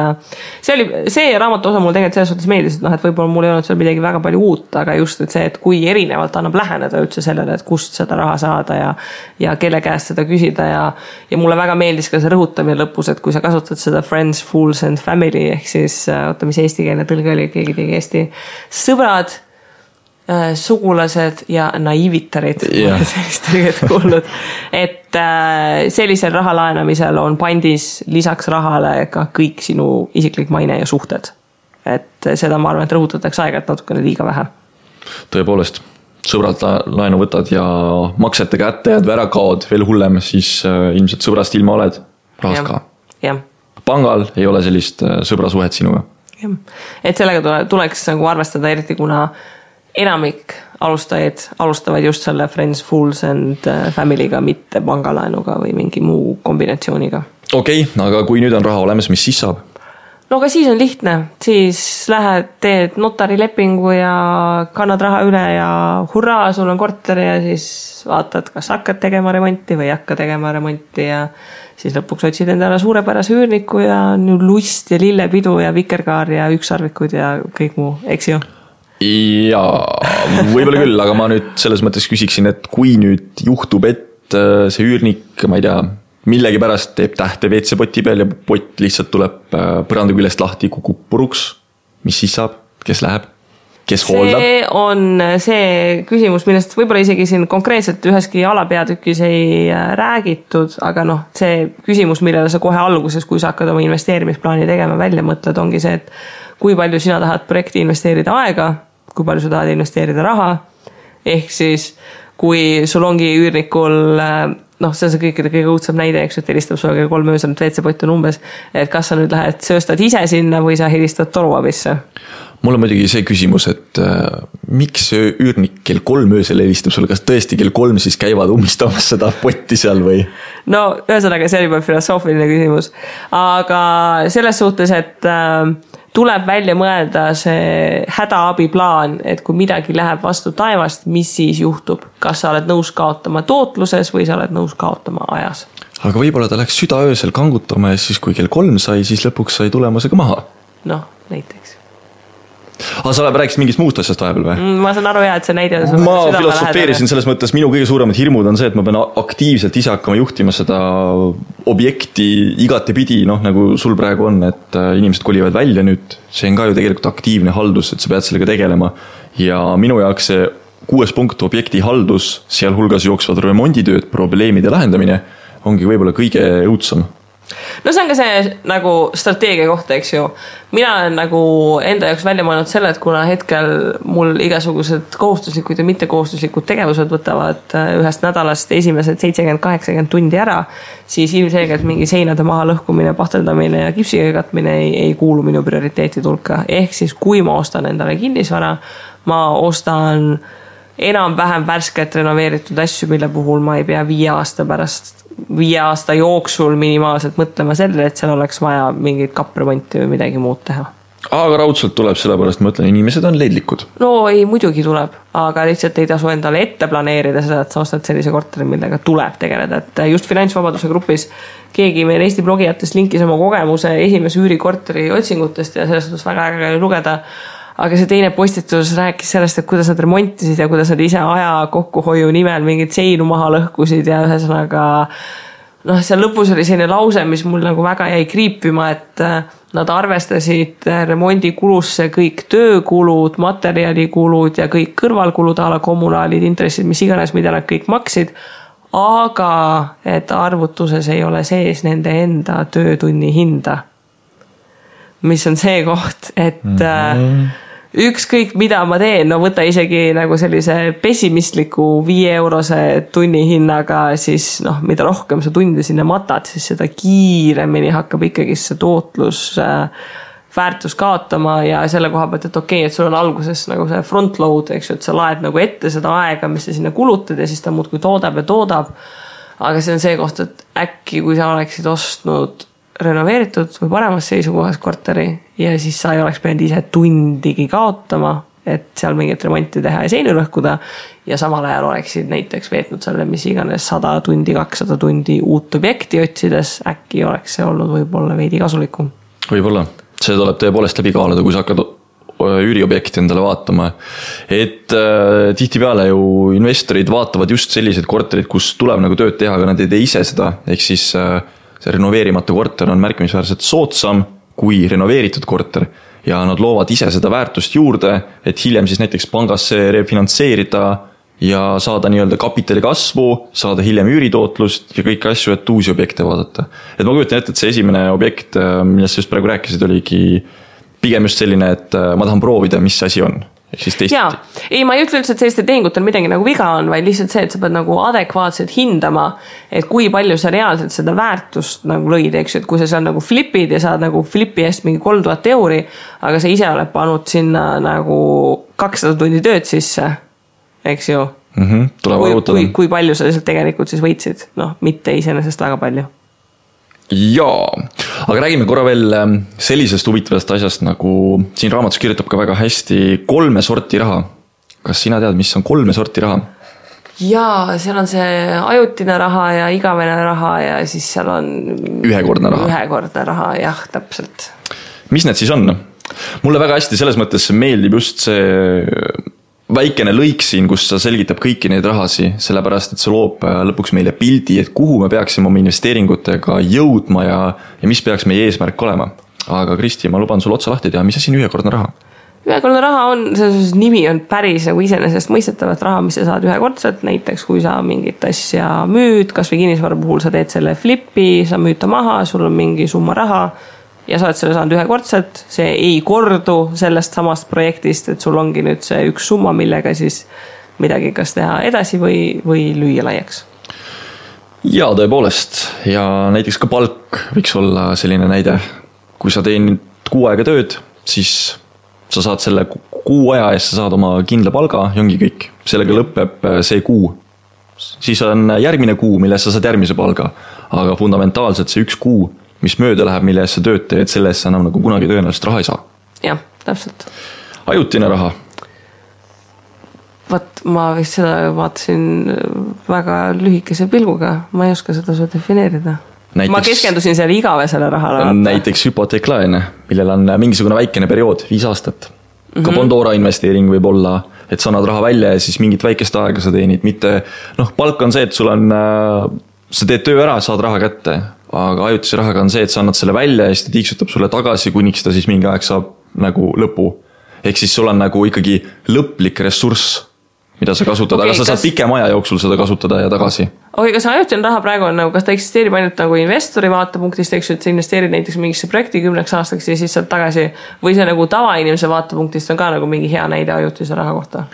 see raamatu osa mul tegelikult selles suhtes meeldis, et võib-olla mul ei olnud seal midagi väga palju uut, aga just et see, et kui erinevalt annab läheneda üldse sellele, et kust seda raha saada ja kelle käest seda küsida ja mulle väga meeldis ka see rõhutamine lõpus, et kui sa kasutad seda friends, fools and family ehk siis mis eestikeelne tõlge oli, keegi tegi Eesti sõbrad, sugulased ja naiivitarid sellist tõrget kuulnud, et sellisel raha laenamisel on pandis lisaks rahale ka kõik sinu isiklik maine ja suhted. Et seda ma arvan, et rõhutatakse aega, et natukene liiga vähe. Tõepoolest, sõbrad laenu võtad ja maksete kätte jääd või ära kaod, veel hullem, siis ilmselt sõbrast ilma oled rahast ka. Pangal ei ole sellist sõbrasuhet sinuga. Et sellega tuleks nagu arvestada eriti, kuna enamik alustajaid alustavad just selle Friends, Fools and Family'ga, mitte pangalaenuga või mingi muu kombinatsiooniga. Okei, aga kui nüüd on raha olemas, mis siis saab? no aga siis on lihtne, siis lähed, teed notarilepingu ja kannad raha üle ja hurraa, sul on korter ja siis vaatad, kas hakkad tegema remonti või ei hakka tegema remonti ja siis lõpuks otsid endale suurepärase üürniku ja on ju lust ja lillepidu ja vikerkaar ja ükssarvikud ja kõik muu, eks ju? Jaa, võib-olla küll, aga ma nüüd selles mõttes küsiksin, et kui nüüd juhtub, et see üürnik, ma ei tea, millegi pärast teeb tähte WC-poti peal ja pott lihtsalt tuleb põranda küljest lahti, kukub puruks. Mis siis saab? Kes läheb? Kes hooldab? See on see küsimus, millest võib-olla isegi siin konkreetselt üheski alapeatükis ei räägitud, aga noh, see küsimus, millele sa kohe alguses, kui sa hakkad oma investeerimisplaani tegema, välja mõtled, ongi see, et kui palju sina tahad projekti investeerida aega, kui palju sa tahad investeerida raha, ehk siis kui sul ongi üürnikul noh, see on see kõige õudsem näide, eks, et helistab sulle kell 3 öösel, et WC-pott on umbes, et kas sa nüüd lähed sööstad ise sinna või sa helistad toruabisse? Mul on muidugi see küsimus, et miks see üürnik kell 3 öösel helistab sulle, kas tõesti kell 3 siis käivad ummistamas seda potti seal või? No, ühesõnaga, see oli juba filosoofiline küsimus, aga selles suhtes, et tuleb välja mõelda see hädaabiplaan, et kui midagi läheb vastu taevast, mis siis juhtub? Kas sa oled nõus kaotama tootluses või sa oled nõus kaotama ajas? Aga võib-olla ta läks südaöösel kangutama ja siis kui kell 3 sai, siis lõpuks sai tulemusega maha. Noh, näiteks. Aga sa rääkisid mingist muust asjast vahepeal või? Ma saan aru, et see näide ma filosofeerisin selles mõttes, minu kõige suuremad hirmud on see, et ma pean aktiivselt ise hakkama juhtima seda objekti igatepidi, noh nagu sul praegu on, et inimesed kolivad välja nüüd, see on ka ju tegelikult aktiivne haldus, et sa pead sellega tegelema ja minu jaoks see 6 punkt objekti haldus, sealhulgas jooksvad remonditööd, probleemide lahendamine ongi võib-olla kõige õudsam. No see on ka see nagu strateegia kohta, eks ju. Mina olen nagu enda jaoks välja mõelnud selle, et kuna hetkel mul igasugused kohustuslikud ja mittekohustuslikud tegevused võtavad ühest nädalast esimesed 70-80 tundi ära, siis ilmselgelt mingi seinade maha lõhkumine, pahteldamine ja kipsiga katmine ei kuulu minu prioriteetide hulka. Ehk siis kui ma ostan endale kinnisvara, ma ostan enam-vähem värsket renoveeritud asju, mille puhul ma ei pea 5 aasta jooksul minimaalselt mõtlema selle, et seal oleks vaja mingit kapremonti või midagi muud teha. Aga raudselt tuleb, sellepärast ma ütlen, inimesed on leidlikud. No ei, muidugi tuleb, aga lihtsalt ei tasu endale ette planeerida seda, et sa ostad sellise korteri, millega tuleb tegeleda. Et just finantsvabaduse grupis keegi meil Eesti blogijatest linkis oma kogemuse esimese üürikorteri otsingutest ja sellest on väga äge lugeda. Aga see teine postitus rääkis sellest, et kuidas nad remontisid ja kuidas nad ise aja kokkuhoiu nimel mingid seinu maha lõhkusid ja ühesõnaga noh, seal lõpus oli selline lause, mis mul nagu väga jäi kriipima, et nad arvestasid remondikulusse kõik töökulud, materjalikulud ja kõik kõrvalkulud, ala kommunaalid, intressid, mis iganes, mida nad kõik maksid, aga et arvutuses ei ole sees nende enda töötunni hinda. Mis on see koht, et ükskõik mida ma teen, no võta isegi nagu sellise pessimistliku 5 eurose tunni hinnaga, siis noh, mida rohkem sa tunde sinna matad, siis seda kiiremini hakkab ikkagi see tootlus väärtus kaotama ja selle koha pealt, et okei, et sul on alguses nagu see front load, eks ju, et sa laed nagu ette seda aega, mis sa sinna kulutad ja siis ta muudkui toodab ja toodab. Aga see on see koht, et äkki kui sa oleksid ostnud renoveeritud või paremas seisukohas korteri ja siis sa ei oleks pidanud ise tundigi kaotama, et seal mingit remonti teha ja seinu lõhkuda ja samal ajal oleksid näiteks veetnud selle, mis iganes 100 tundi, 200 tundi uut objekti otsides, äkki oleks see olnud võib-olla veidi kasulikum. Võib-olla, see tuleb tõepoolest läbi kaaluda, kui sa hakkad üüriobjekti endale vaatama, et tihtipeale ju investorid vaatavad just sellised korterid, kus tuleb nagu tööd teha, aga nad ei tee ise seda, ehk siis see renoveerimata korter on märkimisväärselt soodsam kui renoveeritud korter ja nad loovad ise seda väärtust juurde, et hiljem siis näiteks pangasse refinantseerida ja saada nii-öelda kapitali kasvu, saada hiljem üüritootlust ja kõiki asju, et uusi objekte vaadata. Et ma kujutan ette, et see esimene objekt, millest sa just praegu rääkisid, oligi pigem just selline, et ma tahan proovida, mis asi on. Jaa, ei, ma ei ütle üldse, et selliste tehingutel midagi nagu viga on, vaid lihtsalt see, et sa pead nagu adekvaatselt hindama, et kui palju sa reaalselt seda väärtust nagu lõid, eks, et kui sa seal nagu flipid ja saad nagu flipi eest mingi 3000 euri, aga sa ise oled pannud sinna nagu 200 tundi tööd sisse, eks ju. Kui palju sa lihtsalt tegelikult siis võitsid, noh, mitte iseenesest väga palju. Jaa, aga räägime korra veel sellisest huvitavast asjast, nagu siin raamatus kirjutab ka väga hästi 3 sorti raha. Kas sina tead, mis on 3 sorti raha? Jaa, seal on see ajutine raha ja igavene raha ja siis seal on ühekordne raha, jah, täpselt. Mis need siis on? Mulle väga hästi selles mõttes meeldib just see väikene lõik siin, kus sa selgitab kõiki neid rahasi, sellepärast, et see loob lõpuks meile pildi, et kuhu me peaksime oma investeeringutega jõudma ja mis peaks meie eesmärk olema. Aga Kristi, ma luban sul otsa lahti teha, mis asi on ühekordne raha? Ühekordne raha on, selles nimi on päris nagu iseenesest mõistetavat raha, mis sa saad ühekordselt, näiteks kui sa mingit asja müüd, kas või kinnisvara puhul sa teed selle flipi, sa müüd ta maha, sul on mingi summa raha ja sa oled selle saanud ühekordselt, see ei kordu sellest samast projektist, et sul ongi nüüd see üks summa, millega siis midagi kas teha edasi või lüüa laiaks. Jaa, tõepoolest, ja näiteks ka palk võiks olla selline näide. Kui sa teenid 6 aega tööd, siis sa saad selle 6 aja eest, sa saad oma kindla palga ja ongi kõik. Sellega lõpeb see kuu. Siis on järgmine kuu, milles sa saad järgmise palga. Aga fundamentaalselt see 1 kuu, mis mööda läheb, mille eest sa tööd teed, selle eest sa enam nagu kunagi tõenäoliselt raha ei saa. Jah, täpselt. Ajutine raha. Vaat ma vist seda vaatasin väga lühikese pilguga. Ma ei oska seda su defineerida. Ma keskendusin selle igavesele rahale. Näiteks hüpoteeklaene, millel on mingisugune väikene periood, 5 aastat. Ka Bondora investeering võib olla, et sa annad raha välja ja siis mingit väikest aega sa teenid. Mitte, palk on see, et sul on, sa teed töö ära, saad raha kätte. Aga ajutise rahaga on see, et sa annad selle välja ja siis ta tiiksutab sulle tagasi, kuniks ta siis mingi aeg saab nagu lõpu. Ehk siis sul on nagu ikkagi lõplik ressurss, mida sa kasutad, aga sa saad pikem aja jooksul seda kasutada ja tagasi. Kas ajutine raha praegu on nagu, kas ta eksisteerib ainult nagu investori vaatepunktist, eks ju, et sa investeerid näiteks mingisse projekti 10 aastaks ja siis saad tagasi, või see nagu tavainimese vaatepunktist on ka nagu mingi hea näide ajutise raha kohta?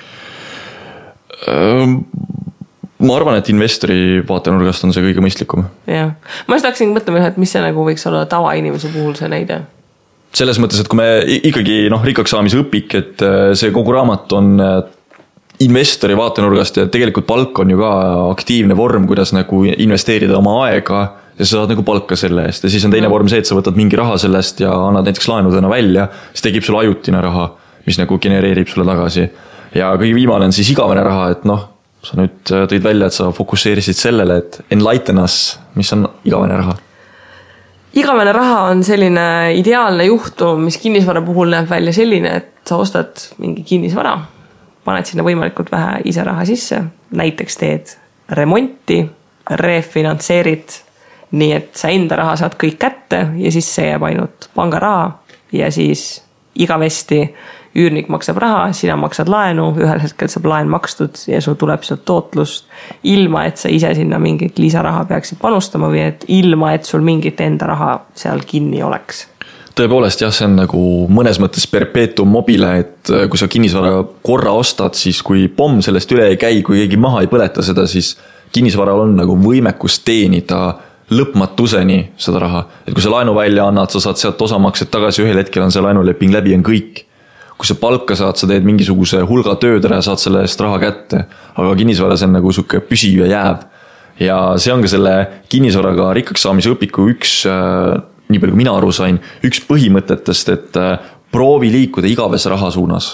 Ma arvan, et investori vaatenurgast on see kõige mõistlikum. Jah. Ma just hakkasin mõtlema, et mis see nagu võiks olla tavainimese puhul see näide? Selles mõttes, et kui me ikkagi rikkaks saamise õpik, et see kogu raamat on investori vaatenurgast ja tegelikult palk on ju ka aktiivne vorm, kuidas nagu investeerida oma aega ja sa saad nagu palka selle eest. Ja siis on teine vorm see, et sa võtad mingi raha sellest ja annad näiteks laenudena välja, siis tekib sulle ajutine raha, mis nagu genereerib sulle tagasi. Ja kõige viimane on siis igavene raha, et sa nüüd tõid välja, et sa fokusseerisid sellele, et enlighten us, mis on igavene raha. Igavene raha on selline ideaalne juhtum, mis kinnisvara puhul näeb välja selline, et sa ostad mingi kinnisvara, paned sinna võimalikult vähe ise raha sisse, näiteks teed remonti, refinantseerid, nii et sa enda raha saad kõik kätte ja siis see jääb ainult pangaraha ja siis igavesti üürnik maksab raha, sina maksad laenu, ühel hetkel saab laen makstud ja sul tuleb sealt tootlust ilma, et sa ise sinna mingit lisaraha peaksid panustama või et ilma, et sul mingit enda raha seal kinni oleks. Tõepoolest jah, see on nagu mõnes mõttes perpetuum mobile, et kui sa kinnisvara korra ostad, siis kui pomm sellest üle ei käi, kui keegi maha ei põleta seda, siis kinnisvaral on nagu võimekus teenida lõpmatuseni seda raha. Et kui sa laenu välja annad, sa saad sealt osamaksed tagasi, ühel hetkel on see laenuleping läbi, on kõik. Kui sa palka saad, sa teed mingisuguse hulga tööd ära ja saad selle eest raha kätte, aga kinnisvara see on nagu suke püsiv ja jääv. Ja see on ka selle kinnisvaraga rikkaks saamise õpiku üks nii palju kui mina aru sain, üks põhimõtetest, et proovi liikuda igavese raha suunas.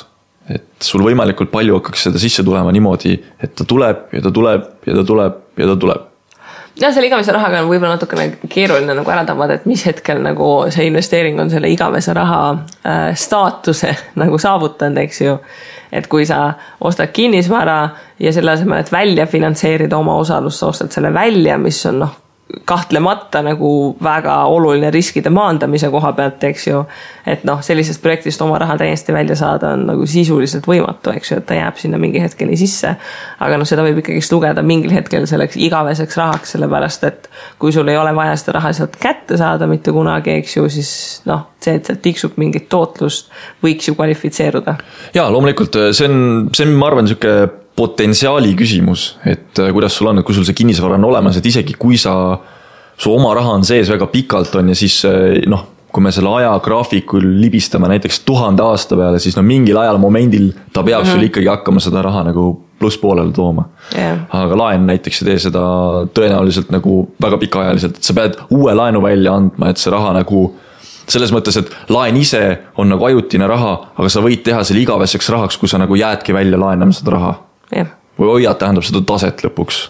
Et sul võimalikult palju hakkaks seda sisse tulema niimoodi, et ta tuleb ja ta tuleb ja ta tuleb ja ta tuleb. Ja selle igavese rahaga on võib-olla natukene keeruline nagu ära tabada, et mis hetkel nagu see investeering on selle igavese raha staatuse nagu saavutanud, eks ju. Et kui sa ostad kinnisvara ja selle asemel, et välja finantseerida oma osalust, sa ostad selle välja, mis on kahtlemata nagu väga oluline riskide maandamise koha pealt, eks ju, et sellisest projektist oma raha täiesti välja saada on nagu sisuliselt võimatu, eks ju, et ta jääb sinna mingi hetkeni sisse, aga seda võib ikkagi lugeda mingil hetkel selleks igaveseks rahaks, sellepärast, et kui sul ei ole vaja seda raha sealt kätte saada mitte kunagi, eks ju, siis see, et sealt tiksub mingit tootlust, võiks ju kvalifitseeruda. Jaa, loomulikult, see on ma arvan, niisugune potentsiaali küsimus, et kuidas sul on, et kui sul see kinnisvara on olemas, et isegi kui su oma raha on sees väga pikalt on ja siis kui me selle ajagraafikul libistame näiteks 1000 aasta peale, siis mingil ajal momendil ta peab sul ikkagi hakkama seda raha nagu plusspoolele tooma Aga laen näiteks ei tee seda tõenäoliselt nagu väga pikaajaliselt, et sa pead uue laenu välja andma, et see raha nagu selles mõttes, et laen ise on nagu ajutine raha, aga sa võid teha selle igaveseks rahaks, kui sa nagu jäädki välja laenama seda raha või hoiad tähendab seda taset lõpuks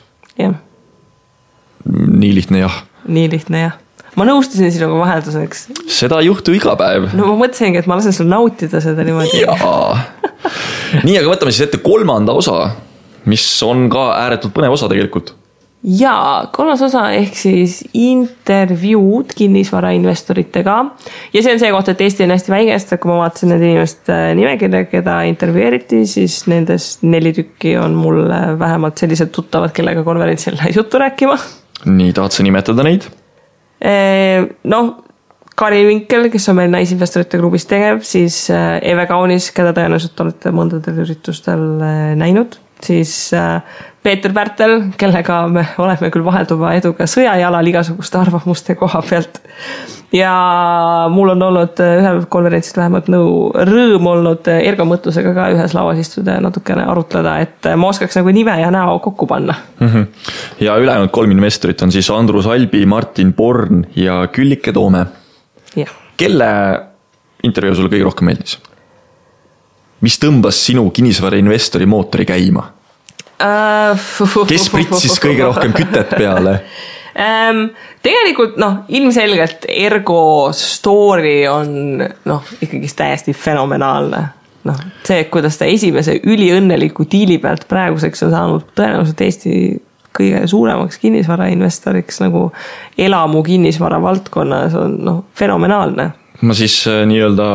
Nii lihtne jah Ma nõustusin sinuga vahelduseks. Seda ei juhtu iga päev. No ma mõtlesingi, et ma lasen sul nautida seda niimoodi. Nii, aga võtame siis ette 3. osa, mis on ka ääretult põnev osa tegelikult. Jaa, 3. osa ehk siis intervjuud kinnisvarainvestoritega. Ja see on see koht, et Eesti on hästi väikest, kui ma vaatasin need inimest nimekirja, keda intervjueeriti, siis nendest 4 tükki on mul vähemalt sellised tuttavad, kellega konverentsil juttu rääkima. Nii, tahad sa nimetada neid? Karin Vinkel, kes on meil naisinvestorite klubis tegev, siis Eve Kaunis, keda tõenäoliselt olete mõndadel üritustel näinud, siis Peeter Pärtel, kellega me oleme küll vahelduva eduga sõjajalal igasuguste arvamuste koha pealt. Ja mul on olnud ühel konverentsil vähemalt rõõm olnud Ergo Mõttusega ka ühes lauas istuda ja natukene arutleda, et ma oskaks nagu nime ja näo kokku panna. Ja ülejäänud 3 investorit on siis Andrus Albi, Martin Born ja Küllike Toome. Kelle intervjuu sulle kõige rohkem meeldis? Mis tõmbas sinu kinnisvarainvestori mootori käima? Kes pritsis kõige rohkem kütet peale? Tegelikult ilmselgelt Ergo story on ikkagi täiesti fenomenaalne. See, kuidas ta esimese üliõnneliku diili pealt praeguseks on saanud tõenäoliselt Eesti kõige suuremaks kinnisvarainvestoriks nagu elamu kinnisvara valdkonnas on fenomenaalne. Ma siis nii-öelda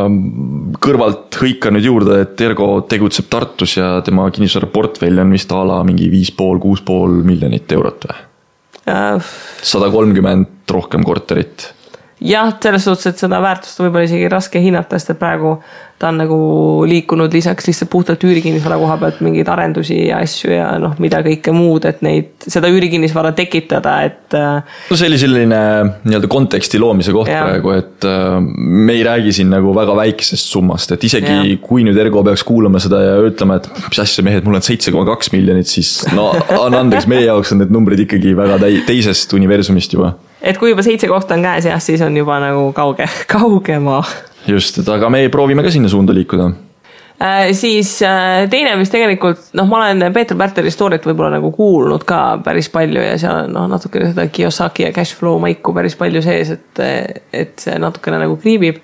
kõrvalt hõikan nüüd juurde, et Ergo tegutseb Tartus ja tema kinnisvara portfell on vist ala mingi 5,5–6,5 miljonit eurot või? 130 rohkem korterit. Jah, selles suhtes, et seda väärtust võib-olla isegi raske hinnata, sest et praegu ta on nagu liikunud lisaks lihtsalt puhtalt üürikinnisvara koha pealt mingeid arendusi ja asju ja mida kõike muud, et seda üürikinnisvara tekitada, et see oli selline nii-öelda konteksti loomise koht praegu, et me ei räägi siin nagu väga väikesest summast, et isegi kui nüüd Ergo peaks kuulama seda ja ütlema, et mis asja mehed, mul on 7,2 miljonit, siis andeks, meie jaoks on need numbrid ikkagi väga teisest universumist juba. Et kui juba 7 kohta on käes, siis on juba nagu kaugema. Just, et aga me proovime ka sinna suunda liikuda. Siis teine, mis tegelikult, ma olen Peeter Pärteli storyt võib-olla nagu kuulnud ka päris palju ja seal on natukene seda Kiyosaki ja cashflow maiku päris palju sees, et see natukene nagu kriibib.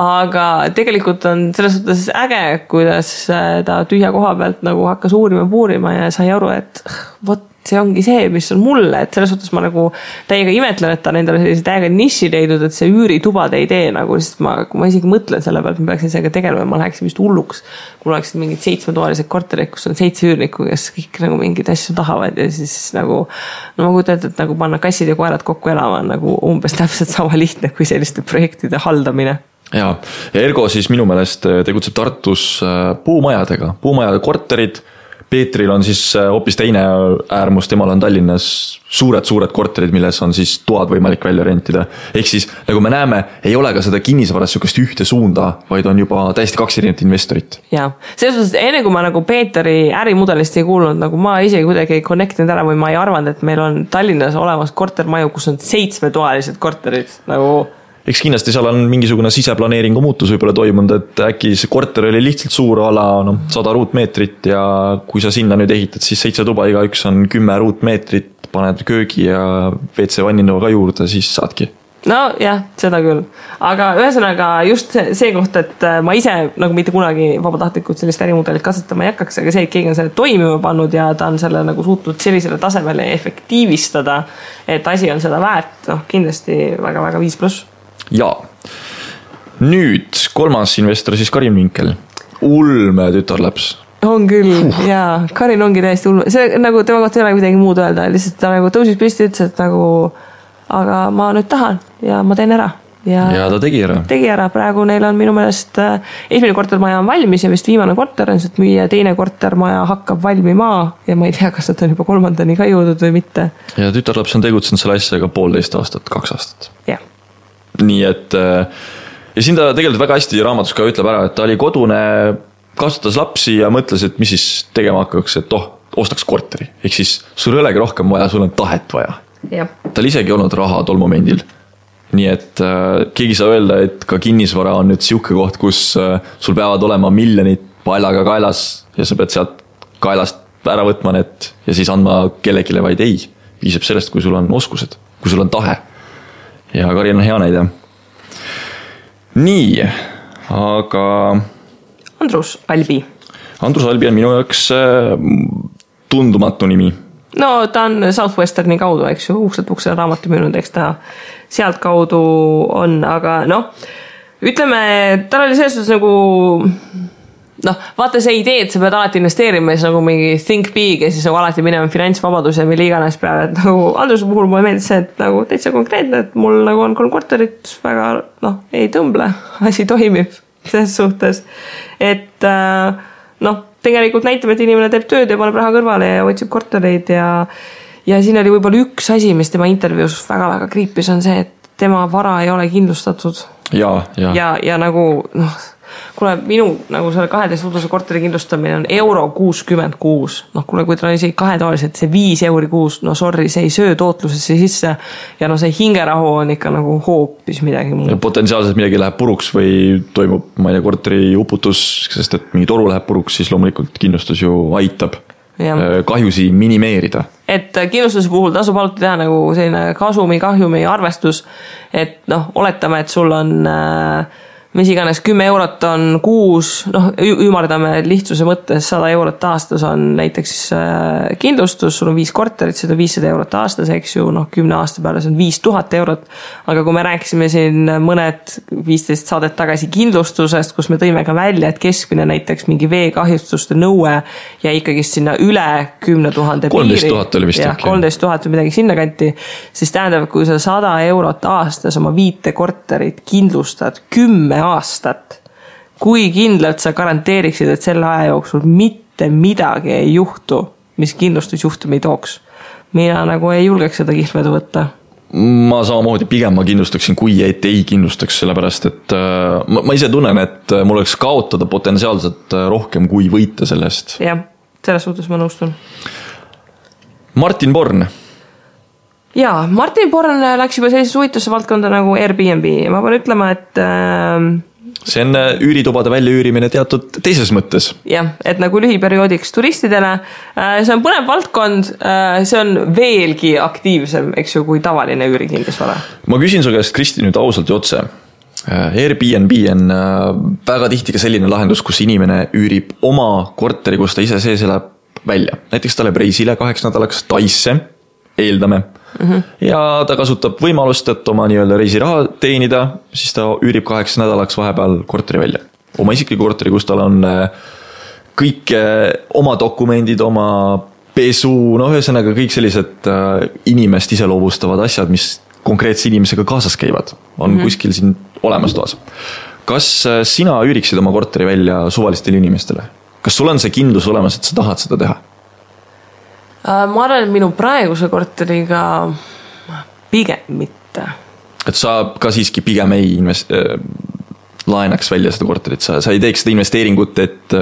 Aga tegelikult on selles suhtes äge, kuidas ta tühja koha pealt nagu hakkas puurima ja sai aru, et see ongi see, mis on mulle, et selles suhtes ma nagu täiega imetlen, et ta nendele sellise täiega niši leidnud, et see üüritubade idee nagu, sest kui ma isegi mõtlen selle pealt, ma peaksin sellega tegelema, ma läheksin vist hulluks, kui oleksid mingid 7-toalised korterid, kus on 7 üürnikku, kes kõik nagu mingid asju tahavad ja siis nagu, ma kujutan, et nagu panna kassid ja koerad kokku elama on nagu umbes täpselt sama lihtne kui selliste projektide haldamine. Ja Ergo siis minu meelest tegutseb Tartus puumajade korterid. Peetril on siis hoopis teine äärmus, temal on Tallinnas suured korterid, milles on siis toad võimalik välja rentida. Ehk siis, nagu me näeme, ei ole ka seda kinnisvaras sükest ühte suunda, vaid on juba täiesti 2 erinevat investorit. Jaa, selles suhtes enne kui ma nagu Peeteri ärimudelist ei kuulnud, nagu ma isegi kuidagi ei connectinud ära või ma ei arvanud, et meil on Tallinnas olemas kortermaju, kus on 7-toalised korterid, nagu eks kindlasti seal on mingisugune siseplaneeringu muutus võib-olla toimunud, et äkki see korter oli lihtsalt suur ala 100 ruutmeetrit ja kui sa sinna nüüd ehitad, siis 7 tuba, igaüks on 10 ruutmeetrit, paned köögi ja WC vanninua ka juurde, siis saadki. No jah, seda küll. Aga ühesõnaga just see koht, et ma ise nagu mitte kunagi vabatahtlikult sellist ärimudelit katsetama ei hakkaks, aga see, et keegi on selle toimima pannud ja ta on selle nagu suutnud sellisele tasemele efektiivistada, et asi on seda väärt, kindlasti väga-väga 5+. Jaa. Nüüd 3. investor siis Karin Vinkel. Ulme tütarlaps. On küll, jaa. Karin ongi täiesti ulme. See nagu tema kohta ei ole midagi muud öelda. Lihtsalt ta nagu tõusis püsti, ütles, et nagu aga ma nüüd tahan ja ma teen ära. Ja ta tegi ära. Tegi ära. Praegu neil on minu meelest esimene kortermaja on valmis ja vist viimane korter on, sest müüa teine kortermaja hakkab valmima ja ma ei tea, kas nad on juba 3. ka jõudnud või mitte. Ja tütarlaps on tegutsenud selle asjaga 1,5 aastat, 2 aastat. Jah. Nii et ja siin ta tegelikult väga hästi raamatus ka ütleb ära, et ta oli kodune kasvatas lapsi ja mõtles, et mis siis tegema hakkaks, et ostaks korteri. Ehk siis sul ei olegi rohkem vaja, sul on tahet vaja. Tal isegi olnud raha tol momendil. Nii et keegi saa öelda, et ka kinnisvara on nüüd siuke koht, kus sul peavad olema miljonid paljaga kaelas ja sa pead sealt kaelast ära võtma need ja siis andma kellegile, vaid ei. Piisab sellest, kui sul on oskused, kui sul on tahe. Ja Karin on hea näide. Nii, aga... Andrus Albi. Andrus Albi on minu jaoks tundumatu nimi. No ta on Southwesterni kaudu, eks ju, ukselt raamatu müünud, eks ta sealt kaudu on, aga ütleme, tal oli selles suhtes nagu vaata see idee, et sa pead alati investeerima ja siis nagu mingi think big ja siis nagu alati minema finantsvabadus ja mille iganes peale, et nagu Andruse puhul mulle meeldis see, et nagu täitsa konkreetne, et mul nagu on 3 korterit, väga ei tõmble, asi toimib selles suhtes, et tegelikult näitab, et inimene teeb tööd ja paneb raha kõrvale ja otsib kortereid ja siin oli võib-olla üks asi, mis tema intervjuus väga-väga kriipis, on see, et tema vara ei ole kindlustatud. Ja nagu, kuule, minu nagu selle 12 uduse korteri kindlustamine on €66. Kuule, kui ta on isegi 2 toalised, see 5 € kuus, sorry, see ei söö tootlusesse sisse ja see hingerahu on ikka nagu hoopis midagi muud. Potentsiaalselt midagi läheb puruks või toimub, ma ei tea, korteri uputus, sest et mingi toru läheb puruks, siis loomulikult kindlustus ju aitab kahjusi minimeerida. Et kindlustuse puhul tasub alati teha nagu selline kahjumi arvestus, et oletame, et sul on mis iganes 10 € on kuus, ümardame lihtsuse mõttes 100 € aastas on näiteks kindlustus, sul on 5 korterit, seda 500 € aastas, eks ju, 10 aasta peale see on 5000 €. Aga kui me rääkisime siin mõned 15 saadet tagasi kindlustusest, kus me tõime ka välja, et keskmine näiteks mingi veekahjustuste nõue ja ikkagi sinna üle 10 000 piiri. 13 000 oli vist. 13 000 või midagi sinna kanti, siis tähendab, kui sa 100 € aastas oma 5 korterit kindlustad 10 aastat, kui kindlalt sa garanteeriksid, et selle aja jooksul mitte midagi ei juhtu, mis kindlustusjuhtumi tooks. Mina nagu ei julgeks seda kihlvedu võtta. Ma samamoodi pigem ma kindlustaksin, kui ei kindlustaks, sellepärast, et ma ise tunnen, et mul oleks kaotada potentsiaalselt rohkem kui võita sellest. Jah, selles suhtes ma nõustun. Martin Born. Jaa, Martin Born läks juba sellisesse huvitusse valdkonda nagu Airbnb ja ma pean ütlema, et see on üüritubade väljaüürimine teatud teises mõttes. Jah, et nagu lühiperioodiks turistidele. See on põnev valdkond, see on veelgi aktiivsem, eks ju, kui tavaline üürikindlusvara. Ma küsin su käest, Kristi, nüüd ausalt ja otse. Airbnb on väga tihti ka selline lahendus, kus inimene üürib oma korteri, kus ta ise sees elab välja. Näiteks ta läheb reisile 2 nädalaks Taisse, eeldame. Ja ta kasutab võimalust, et oma nii-öelda reisiraha teenida, siis ta üürib 8 nädalaks vahepeal korteri välja. Oma isikliku korteri, kus tal on kõik oma dokumendid, oma pesu, ühesõnaga kõik sellised inimest iseloomustavad asjad, mis konkreetse inimesega kaasas käivad, on kuskil siin olemas toas. Kas sina üüriksid oma korteri välja suvalistele inimestele? Kas sul on see kindlus olemas, et sa tahad seda teha? Ma arvan, et minu praeguse korteriga pigem mitte. Et sa ka siiski pigem ei laenaks välja seda korterit, sa ei teeks seda investeeringut, et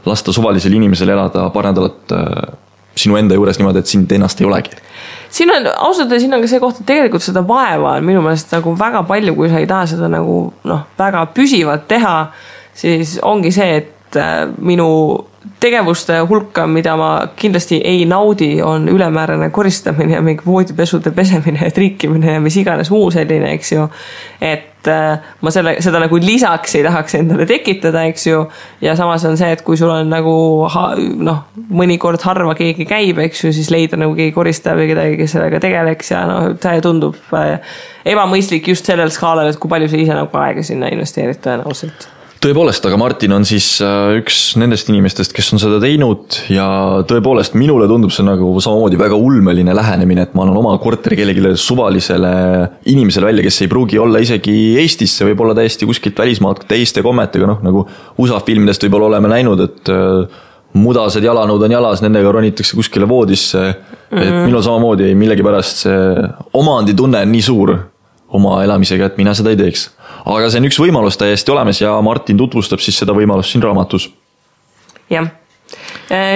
lasta suvalisel inimesel elada paar nädalat sinu enda juures niimoodi, et sind ennast ei olegi. Siin on, ausalt, siin on ka see koht, et tegelikult seda vaeva on minu meelest nagu väga palju, kui sa ei taha seda nagu väga püsivalt teha, siis ongi see, et minu tegevuste hulka, mida ma kindlasti ei naudi, on ülemäärane koristamine ja mingi voodipesude pesemine ja triikimine ja mis iganes muu selline, eks ju. Et ma seda nagu lisaks ei tahaks endale tekitada, eks ju. Ja samas on see, et kui sul on nagu mõnikord harva keegi käib, eks ju, siis leida nagu keegi koristaja või kedagi, kes sellega tegeleks ja see tundub ebamõistlik just sellel skaalal, et kui palju sa ise nagu aega sinna investeerid tõenäoliselt. Tõepoolest, aga Martin on siis üks nendest inimestest, kes on seda teinud ja tõepoolest minule tundub see nagu samamoodi väga ulmeline lähenemine, et ma annan oma korteri kellegile suvalisele inimesele välja, kes ei pruugi olla isegi Eestisse, võib olla täiesti kuskilt välismaalt teiste kommetega, nagu USA filmidest võib-olla oleme näinud, et mudased jalanud on jalas, nendega ronitakse kuskile voodisse, et minul samamoodi millegipärast see omanditunne on nii suur oma elamisega, et mina seda ei teeks. Aga see on üks võimalus täiesti olemas ja Martin tutvustab siis seda võimalust siin raamatus. jah.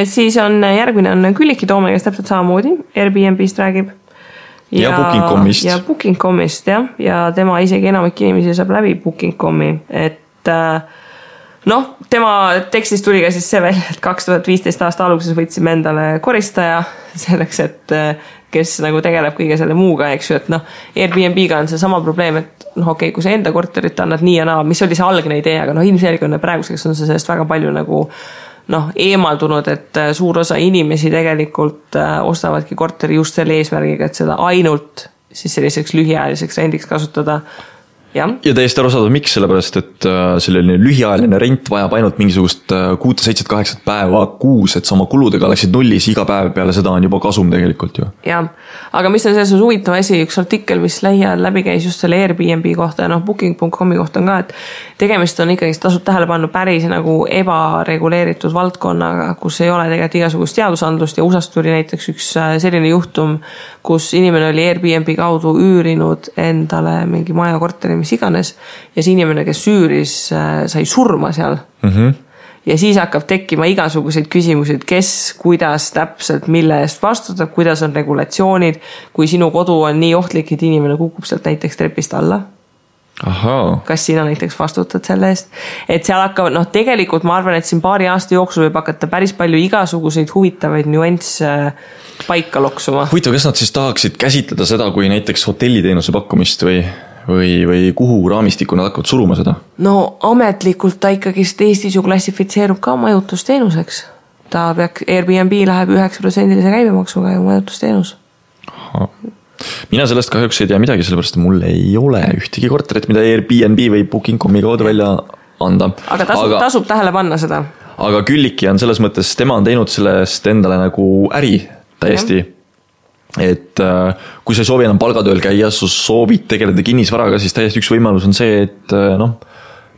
Siis on järgmine on Külliki Toome, kes täpselt samamoodi Airbnb-st räägib. Ja Booking.comist. Ja Booking.comist, jah. Ja tema isegi enamik inimesi saab läbi Booking.comi, et tema tekstist tuli ka siis see välja, et 2015 aasta alguses võtsime endale koristaja selleks, et kes nagu tegeleb kõige selle muuga, eks ju, et Airbnb-ga on see sama probleem, et okei, kui sa enda korterit annad nii ja naa, mis oli see algne idee, aga ilmselgelt praeguseks on see sellest väga palju nagu eemaldunud, et suur osa inimesi tegelikult ostavadki korteri just selle eesmärgiga, et seda ainult siis selliseks lühiajaliseks rendiks kasutada. Ja täiesti arusaadav, miks, sellepärast, et selline lühiajaline rent vajab ainult mingisugust 6, 7, 8 päeva kuus, et sama kuludega oleksid nullis iga päev peale seda on juba kasum tegelikult ju. Jah, aga mis on selles huvitav asi, üks artikkel, mis lähiajal läbi käis just selle Airbnb kohta ja Booking.comi kohta on ka, et tegemist on ikkagi, tasub tähele panna päris nagu ebareguleeritud valdkonnaga, kus ei ole tegelikult igasugust seadusandlust ja USAst tuli näiteks üks selline juhtum, kus inimene oli Airbnb kaudu üürinud endale mingi maja korteri, mis iganes, ja see inimene, kes üüris, sai surma seal. Ja siis hakkab tekkima igasuguseid küsimusi, et kes, kuidas täpselt, mille eest vastutab, kuidas on regulatsioonid, kui sinu kodu on nii ohtlik, et inimene kukub sealt näiteks trepist alla. Kas sina näiteks vastutad selle eest, et seal hakkavad, tegelikult ma arvan, et siin paari aasta jooksul võib hakata päris palju igasuguseid huvitavaid nüansse paika loksuma. Huvitav, kas nad siis tahaksid käsitleda seda kui näiteks hotelliteenuse pakkumist või kuhu raamistiku nad hakkavad suruma seda? Ametlikult ta ikkagi Eestis ju klassifitseerub ka majutusteenuseks. Airbnb läheb 9% käibemaksuga ja majutusteenus. Mina sellest kahjuks ei tea midagi, sellepärast mul ei ole ühtegi korterit, mida Airbnb või Booking.comi kaudu välja anda. Aga tasub tähele panna seda. Aga Külliki on selles mõttes, tema on teinud sellest endale nagu äri täiesti. Et kui sa ei soovi enam palgatööl käia, sa soovid tegeleda kinnisvaraga, siis täiesti üks võimalus on see, et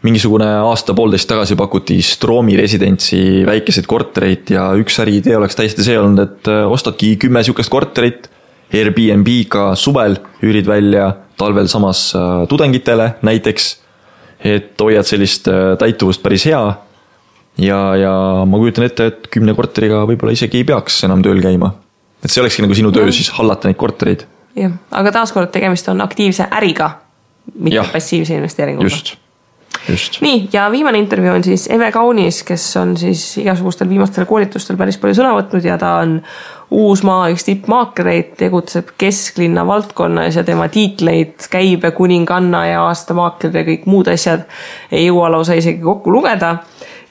mingisugune aasta-poolteist tagasi pakuti Stroomi residentsi väikeseid kortereid ja üks äriidee oleks täiesti see olnud, et ostadki 10 sihukest korterit Airbnb-ga suvel, üürid välja talvel samas tudengitele näiteks, et hoiad sellist täituvust päris hea ja ma kujutan ette, et 10 korteriga võib-olla isegi ei peaks enam tööl käima. Et see olekski nagu sinu töö siis hallata neid kortereid. Jah, aga taaskord tegemist on aktiivse äriga, mitte passiivse investeeringuga. Just. Nii, ja viimane intervjuu on siis Eve Kaunis, kes on siis igasugustel viimastel koolitustel päris palju sõna võtnud ja ta on Uusmaa üks tippmaaklereid, tegutseb kesklinna valdkonnas ja tema tiitleid käibe kuninganna ja aastamaakler ja kõik muud asjad ei jõua lausa isegi kokku lugeda.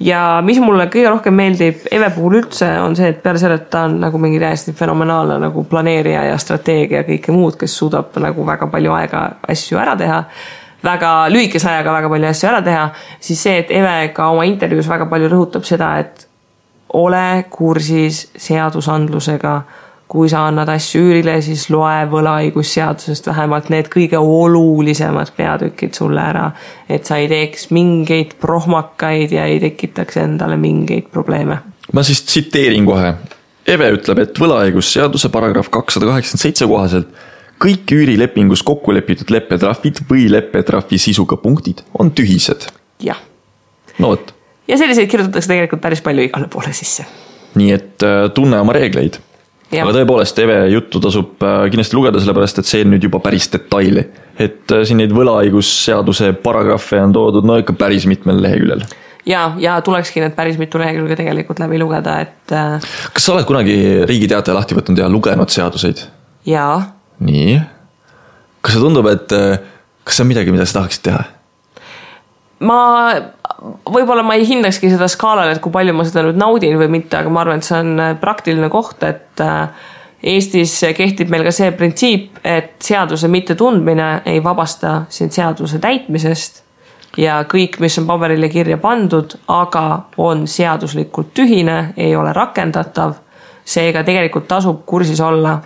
Ja mis mulle kõige rohkem meeldib Eve puhul üldse on see, et peale selle, et ta on nagu mingi täiesti fenomenaalne nagu planeerija ja strateegia ja kõike muud, kes suudab nagu väga palju aega asju ära teha, väga lühikese ajaga väga palju asju ära teha, siis see, et Eve ka oma intervjuus väga palju rõhutab seda, et ole kursis seadusandlusega, kui sa annad asju üürile, siis loe võlaõigusseadusest vähemalt need kõige olulisemad peatükid sulle ära, et sa ei teeks mingeid prohmakaid ja ei tekitaks endale mingeid probleeme. Ma siis tsiteerin kohe. Eve ütleb, et võlaõigusseaduse paragrahv 287 kohaselt kõik üürilepingus kokkulepitud leppetrahvid või leppetrahvi sisuga punktid on tühised. Jah. Vot. Ja selliseid kirjutatakse tegelikult päris palju igale poole sisse. Nii et tunne oma reegleid. Aga tõepoolest Eve juttu tasub kindlasti lugeda, sellepärast, et see on nüüd juba päris detaili. Et siin neid võlaõigusseaduse paragrahve on toodud ikka päris mitmel leheküljel. Ja tulekski need päris mitu lehekülge tegelikult läbi lugeda, et... Kas sa oled kunagi Riigi Teataja lahti võtnud ja lugenud seaduseid? Jaa. Nii. Kas see tundub, et kas see on midagi, mida sa tahaksid teha? Võib-olla ma ei hindakski seda skaalal, et kui palju ma seda nüüd naudin või mitte, aga ma arvan, et see on praktiline koht, et Eestis kehtib meil ka see printsiip, et seaduse mitte tundmine ei vabasta sind seaduse täitmisest ja kõik, mis on paberile kirja pandud, aga on seaduslikult tühine, ei ole rakendatav, seega tegelikult tasub kursis olla.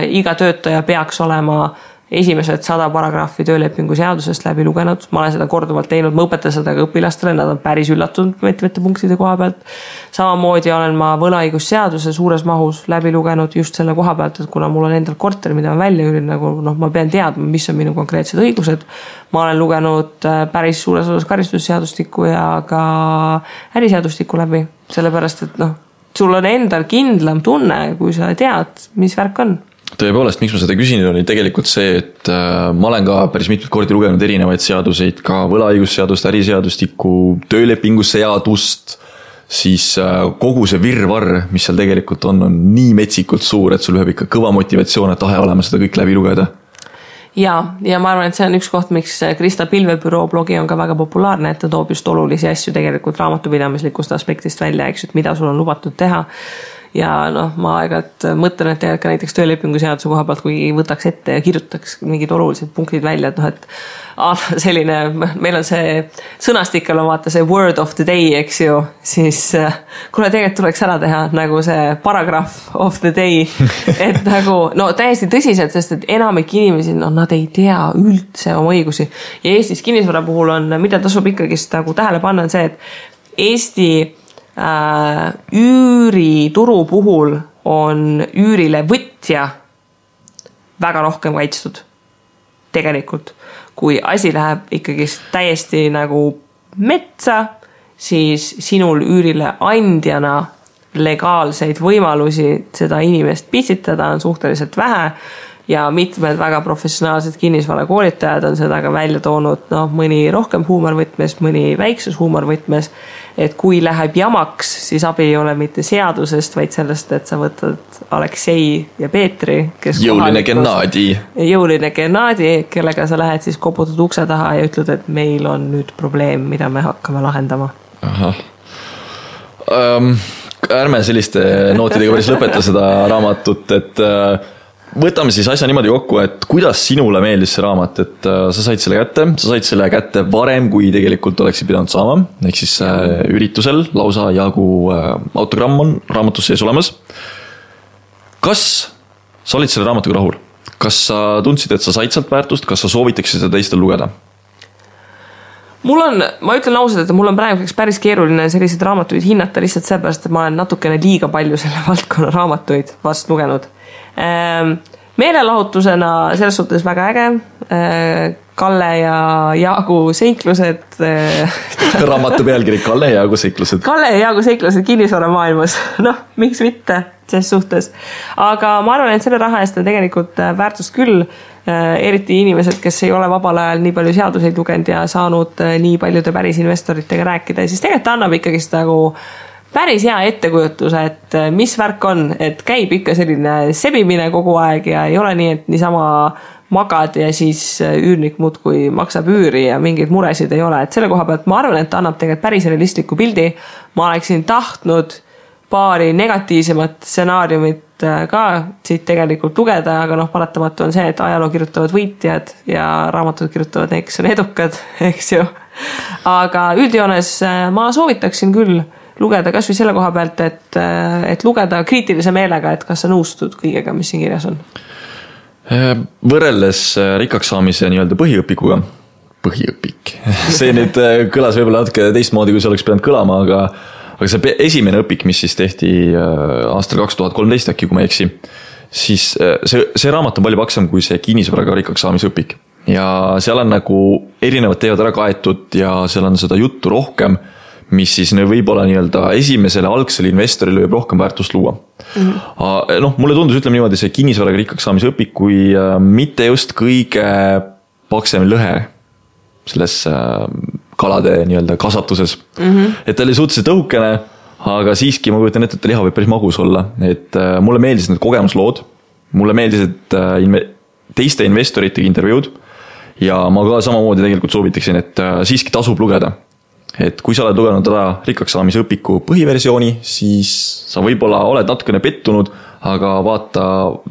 Iga töötaja peaks olema esimesed 100 paragrahvi töölepingu seadusest läbi lugenud, ma olen seda korduvalt teinud, ma õpetan seda ka õpilastele, nad on päris üllatunud mitmete punktide koha pealt. Samamoodi olen ma võlaõigusseaduse suures mahus läbi lugenud just selle koha pealt, et kuna mul on endal korter, mida ma välja üürin, nagu ma pean teadma, mis on minu konkreetsed õigused. Ma olen lugenud päris suures osas karistusseadustikku ja ka äriseadustikku läbi, sellepärast, et sul on endal kindlam tunne, kui sa tead, mis värk on. Tõepoolest, miks ma seda küsin, oli tegelikult see, et ma olen ka päris mitmed kordi lugenud erinevaid seaduseid, ka võlaõigusseadust, äriseadustikku, töölepinguseadust, siis kogu see virvarr, mis seal tegelikult on nii metsikult suur, et sul peab ikka kõva motivatsioon, et tahe olema seda kõik läbi lugeda. Ja ma arvan, et see on üks koht, miks Krista Pilvebüroo blogi on ka väga populaarne, et ta toob just olulisi asju tegelikult raamatupidamislikust aspektist välja, eks, et mida sul on lubatud teha. Ja ma aegalt mõtlen, et ka näiteks töölepingu seaduse koha pealt, kui võtaks ette ja kirjutaks mingid olulised punktid välja, et selline, meil on see sõnastikkel on vaata see word of the day, eks ju, siis kuna tegelikult tuleks ära teha nagu see paragraph of the day, et nagu, täiesti tõsiselt, sest et enamik inimesi, nad ei tea üldse oma õigusi. Ja Eestis kinnisvara puhul on, mida tasub ikkagist nagu tähele panna, on see, et Eesti üürituru puhul on üürile võtja väga rohkem kaitstud tegelikult. Kui asi läheb ikkagi täiesti nagu metsa, siis sinul üürile andjana legaalseid võimalusi seda inimest pitsitada on suhteliselt vähe ja mitmed väga professionaalsed kinnisvarakoolitajad on seda ka välja toonud, mõni rohkem huumorvõtmes, mõni väikses huumorvõtmes, et kui läheb jamaks, siis abi ei ole mitte seadusest, vaid sellest, et sa võtad Aleksei ja Peetri, kes jõuline Gennadi, kellega sa lähed siis koputad ukse taha ja ütled, et meil on nüüd probleem, mida me hakkame lahendama. Ärme selliste nootidega päris lõpeta seda raamatut, et võtame siis asja niimoodi kokku, et kuidas sinule meeldis see raamat, et sa said selle kätte varem, kui tegelikult oleksid pidanud saama, ehk siis üritusel lausa jagu autogramm on raamatus sees olemas. Kas sa olid selle raamatuga rahul? Kas sa tundsid, et sa said sealt väärtust, kas sa soovitaksid seda teistel lugeda? Ma ütlen ausalt, et mul on praeguseks päris keeruline selliseid raamatuid hinnata lihtsalt seepärast, et ma olen natukene liiga palju selle valdkonna raamatuid vast lugenud. Meelelahutusena selles suhtes väga äge. Kalle ja Jaagu seiklused. Raamatu pealkiri Kalle ja Jaagu seiklused. Kalle ja Jaagu seiklused kinnisvara maailmas. Miks mitte selles suhtes. Aga ma arvan, et selle raha eest on tegelikult väärtust küll. Eriti inimesed, kes ei ole vabal ajal nii palju seaduseid lugenud ja saanud nii paljude päris investoritega rääkida, siis tegelikult annab ikkagi seda nagu päris hea ettekujutuse, et mis värk on, et käib ikka selline sebimine kogu aeg ja ei ole nii, et niisama magad ja siis üürnik muudkui maksab üüri ja mingeid muresid ei ole. Et selle koha pealt ma arvan, et annab tegelikult päris realistliku pildi. Ma oleksin tahtnud paari negatiivsemat stsenaariumit ka siit tegelikult lugeda, aga paratamatu on see, et ajaloo kirjutavad võitjad ja raamatud kirjutavad need, kes on edukad, eks ju. Aga üldjoones ma soovitaksin küll lugeda kas või selle koha pealt, et lugeda kriitilise meelega, et kas sa nõustud kõigega, mis siin kirjas on. Võrreldes rikkaks saamise nii-öelda põhiõpikuga, see nüüd kõlas võib-olla natuke teistmoodi, kui see oleks pidanud kõlama, aga see esimene õpik, mis siis tehti aastal 2013 äkki, kui ma eksi, siis see raamat on palju paksam kui see kinnisvaraga rikkaks saamise õpik. Ja seal on nagu erinevad teevad ära kaetud ja seal on seda juttu rohkem, mis siis võib-olla nii-öelda esimesele algsele investorile võib rohkem väärtust luua. Mulle tundus, ütleme niimoodi, see kinnisvaraga rikkaks saamise õpik, kui mitte just kõige paksem lõhe selles kalade nii-öelda kasvatuses. Et ta oli suhteliselt õhukene, aga siiski ma kujutan ette, et liha võib päris magus olla. Et mulle meeldis need kogemuslood, mulle meeldis, et teiste investoritega intervjuud ja ma ka samamoodi tegelikult soovitaksin, et siiski tasub lugeda. Et kui sa oled lugenud ära rikkaks saamise õpiku põhiversiooni, siis sa võib-olla oled natukene pettunud, aga vaata,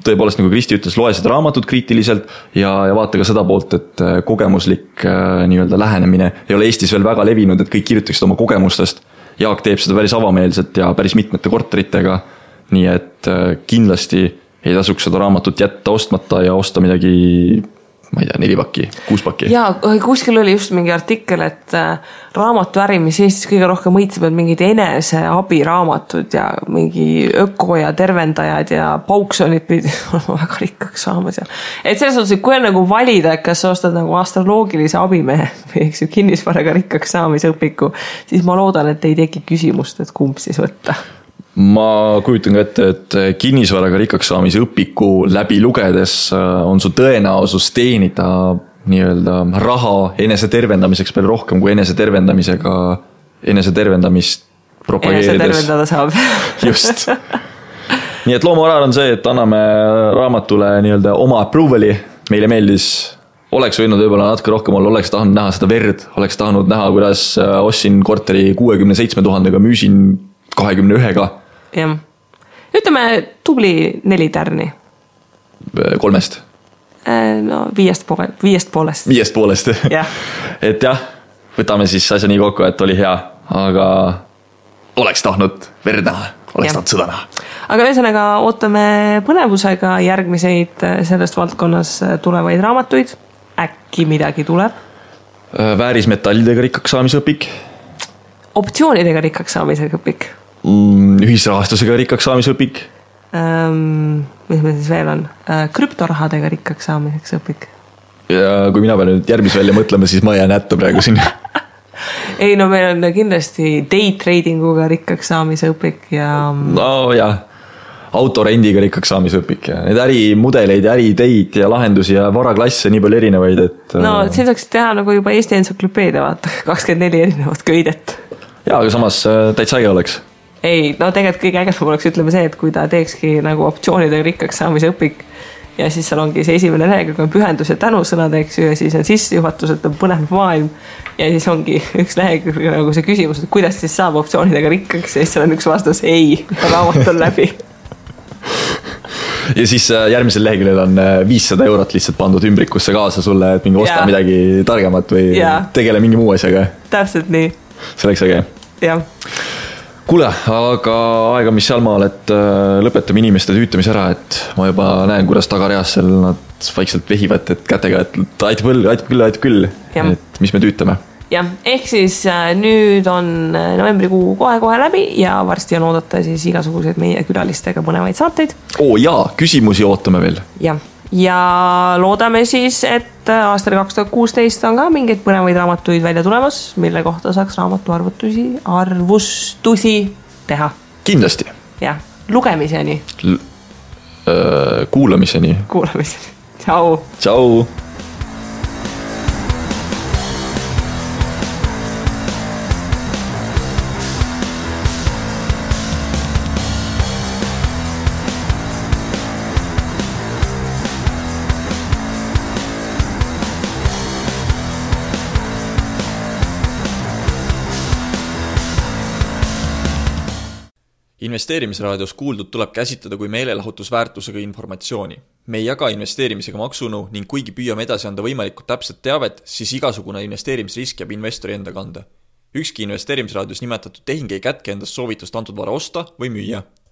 tõepoolest nagu Kristi ütles, loe seda raamatut kriitiliselt ja vaata ka seda poolt, et kogemuslik nii-öelda lähenemine ei ole Eestis veel väga levinud, et kõik kirjutaksid oma kogemustest. Jaak teeb seda päris avameelselt ja päris mitmete korteritega, nii et kindlasti ei tasuks seda raamatut jätta ostmata ja osta midagi ma ei tea, 4 pakki, 6 pakki. Jaa, kuskil oli just mingi artikkel, et raamatuäri, mis Eestis kõige rohkem mõitseb, on mingid eneseabiraamatud ja mingi öko ja tervendajad ja pauksonid pidid olema väga rikkaks saamas. Et selles suhtes, et kui on nagu valida, kas sa ostad nagu astroloogilise abimehe või kinnisvaraga rikkaks saamise õpiku, siis ma loodan, et ei teki küsimust, et kumb siis võtta. Ma kujutan ka ette, et kinnisvaraga rikkaks saamise õpiku läbi lugedes on su tõenäosus teenida nii-öelda raha enese tervendamiseks palju rohkem kui enese tervendamist propageerides. Enese tervendada saab. Just. Nii et loomuarar on see, et anname raamatule nii-öelda oma approval'i. Meile meeldis, oleks võinud võib-olla natuke rohkem olla, oleks tahtnud näha seda verd, oleks tahtnud näha, kuidas ostsin korteri 67 000-ga, müüsin 21-ga. Jah. Ütleme tubli 4 tärni. 3-st. No 5,5. Yeah. Et jah, võtame siis asja nii kokku, et oli hea, aga oleks tahtnud verd näha, oleks tahtnud sõda näha. Aga ühesõnaga ootame põnevusega järgmiseid sellest valdkonnas tulevaid raamatuid. Äkki midagi tuleb? Väärismetallidega rikkaks saamise õpik. Optsioonidega rikkaks saamise õpik. Ühisrahastusega rikkaks saamise õpik. Mis meil siis veel on? Krüptorahadega rikkaks saamiseks õpik. Ja kui mina pean nüüd järgmis välja mõtlema, siis ma jään hätta praegu siin. Ei, no meil on kindlasti day tradinguga rikkaks saamise õpik ja... No jah, autorendiga rikkaks saamise õpik ja need ärimudeleid, äriteid ja lahendusi ja varaklasse nii palju erinevaid, et... No siin saaks teha nagu juba Eesti entsüklopeedia, vaata, 24 erinevat köidet. Jaa, aga samas täitsa äge oleks. Ei, no tegelikult kõige ägedam oleks ütleme see, et kui ta teekski nagu optsioonidega rikkaks saamise õpik ja siis seal ongi see esimene lehekülg on pühendus ja tänusõnad, eks ju, ja siis on sissejuhatus, et on põnev maailm ja siis ongi üks lehekülg nagu see küsimus, et kuidas siis saab optsioonidega rikkaks ja siis seal on üks vastus ei, raamat on läbi. Ja siis järgmisel leheküljel on 500 eurot lihtsalt pandud ümbrikusse kaasa sulle, et mingi osta midagi targemat või tegele mingi muu asjaga. Täpselt nii. See oleks äge. Jah. Kuule, aga aega mis sealmaal, et lõpetame inimeste tüütamise ära, et ma juba näen, kuidas tagareas seal nad vaikselt vehivad, et kätega, et aitab küll, et mis me tüütame. Jah, ehk siis nüüd on novembrikuu kohe läbi ja varsti on oodata siis igasuguseid meie külalistega põnevaid saateid. Jaa, küsimusi ootame veel. Jah. Ja loodame siis, et aastal 2016 on ka mingeid põnevaid raamatuid välja tulemas, mille kohta saaks raamatu arvustusi teha. Kindlasti. Jah, lugemiseni. Kuulamiseni. Tšau. Tšau. Investeerimisraadios kuuldud tuleb käsitleda kui meelelahutusväärtusega informatsiooni. Me ei jaga investeerimisega maksunu ning kuigi püüame edasi anda võimalikult täpset teavet, siis igasugune investeerimisrisk jääb investori enda kanda. Ükski investeerimisraadios nimetatud tehing ei kätke endast soovitust antud vara osta või müüa.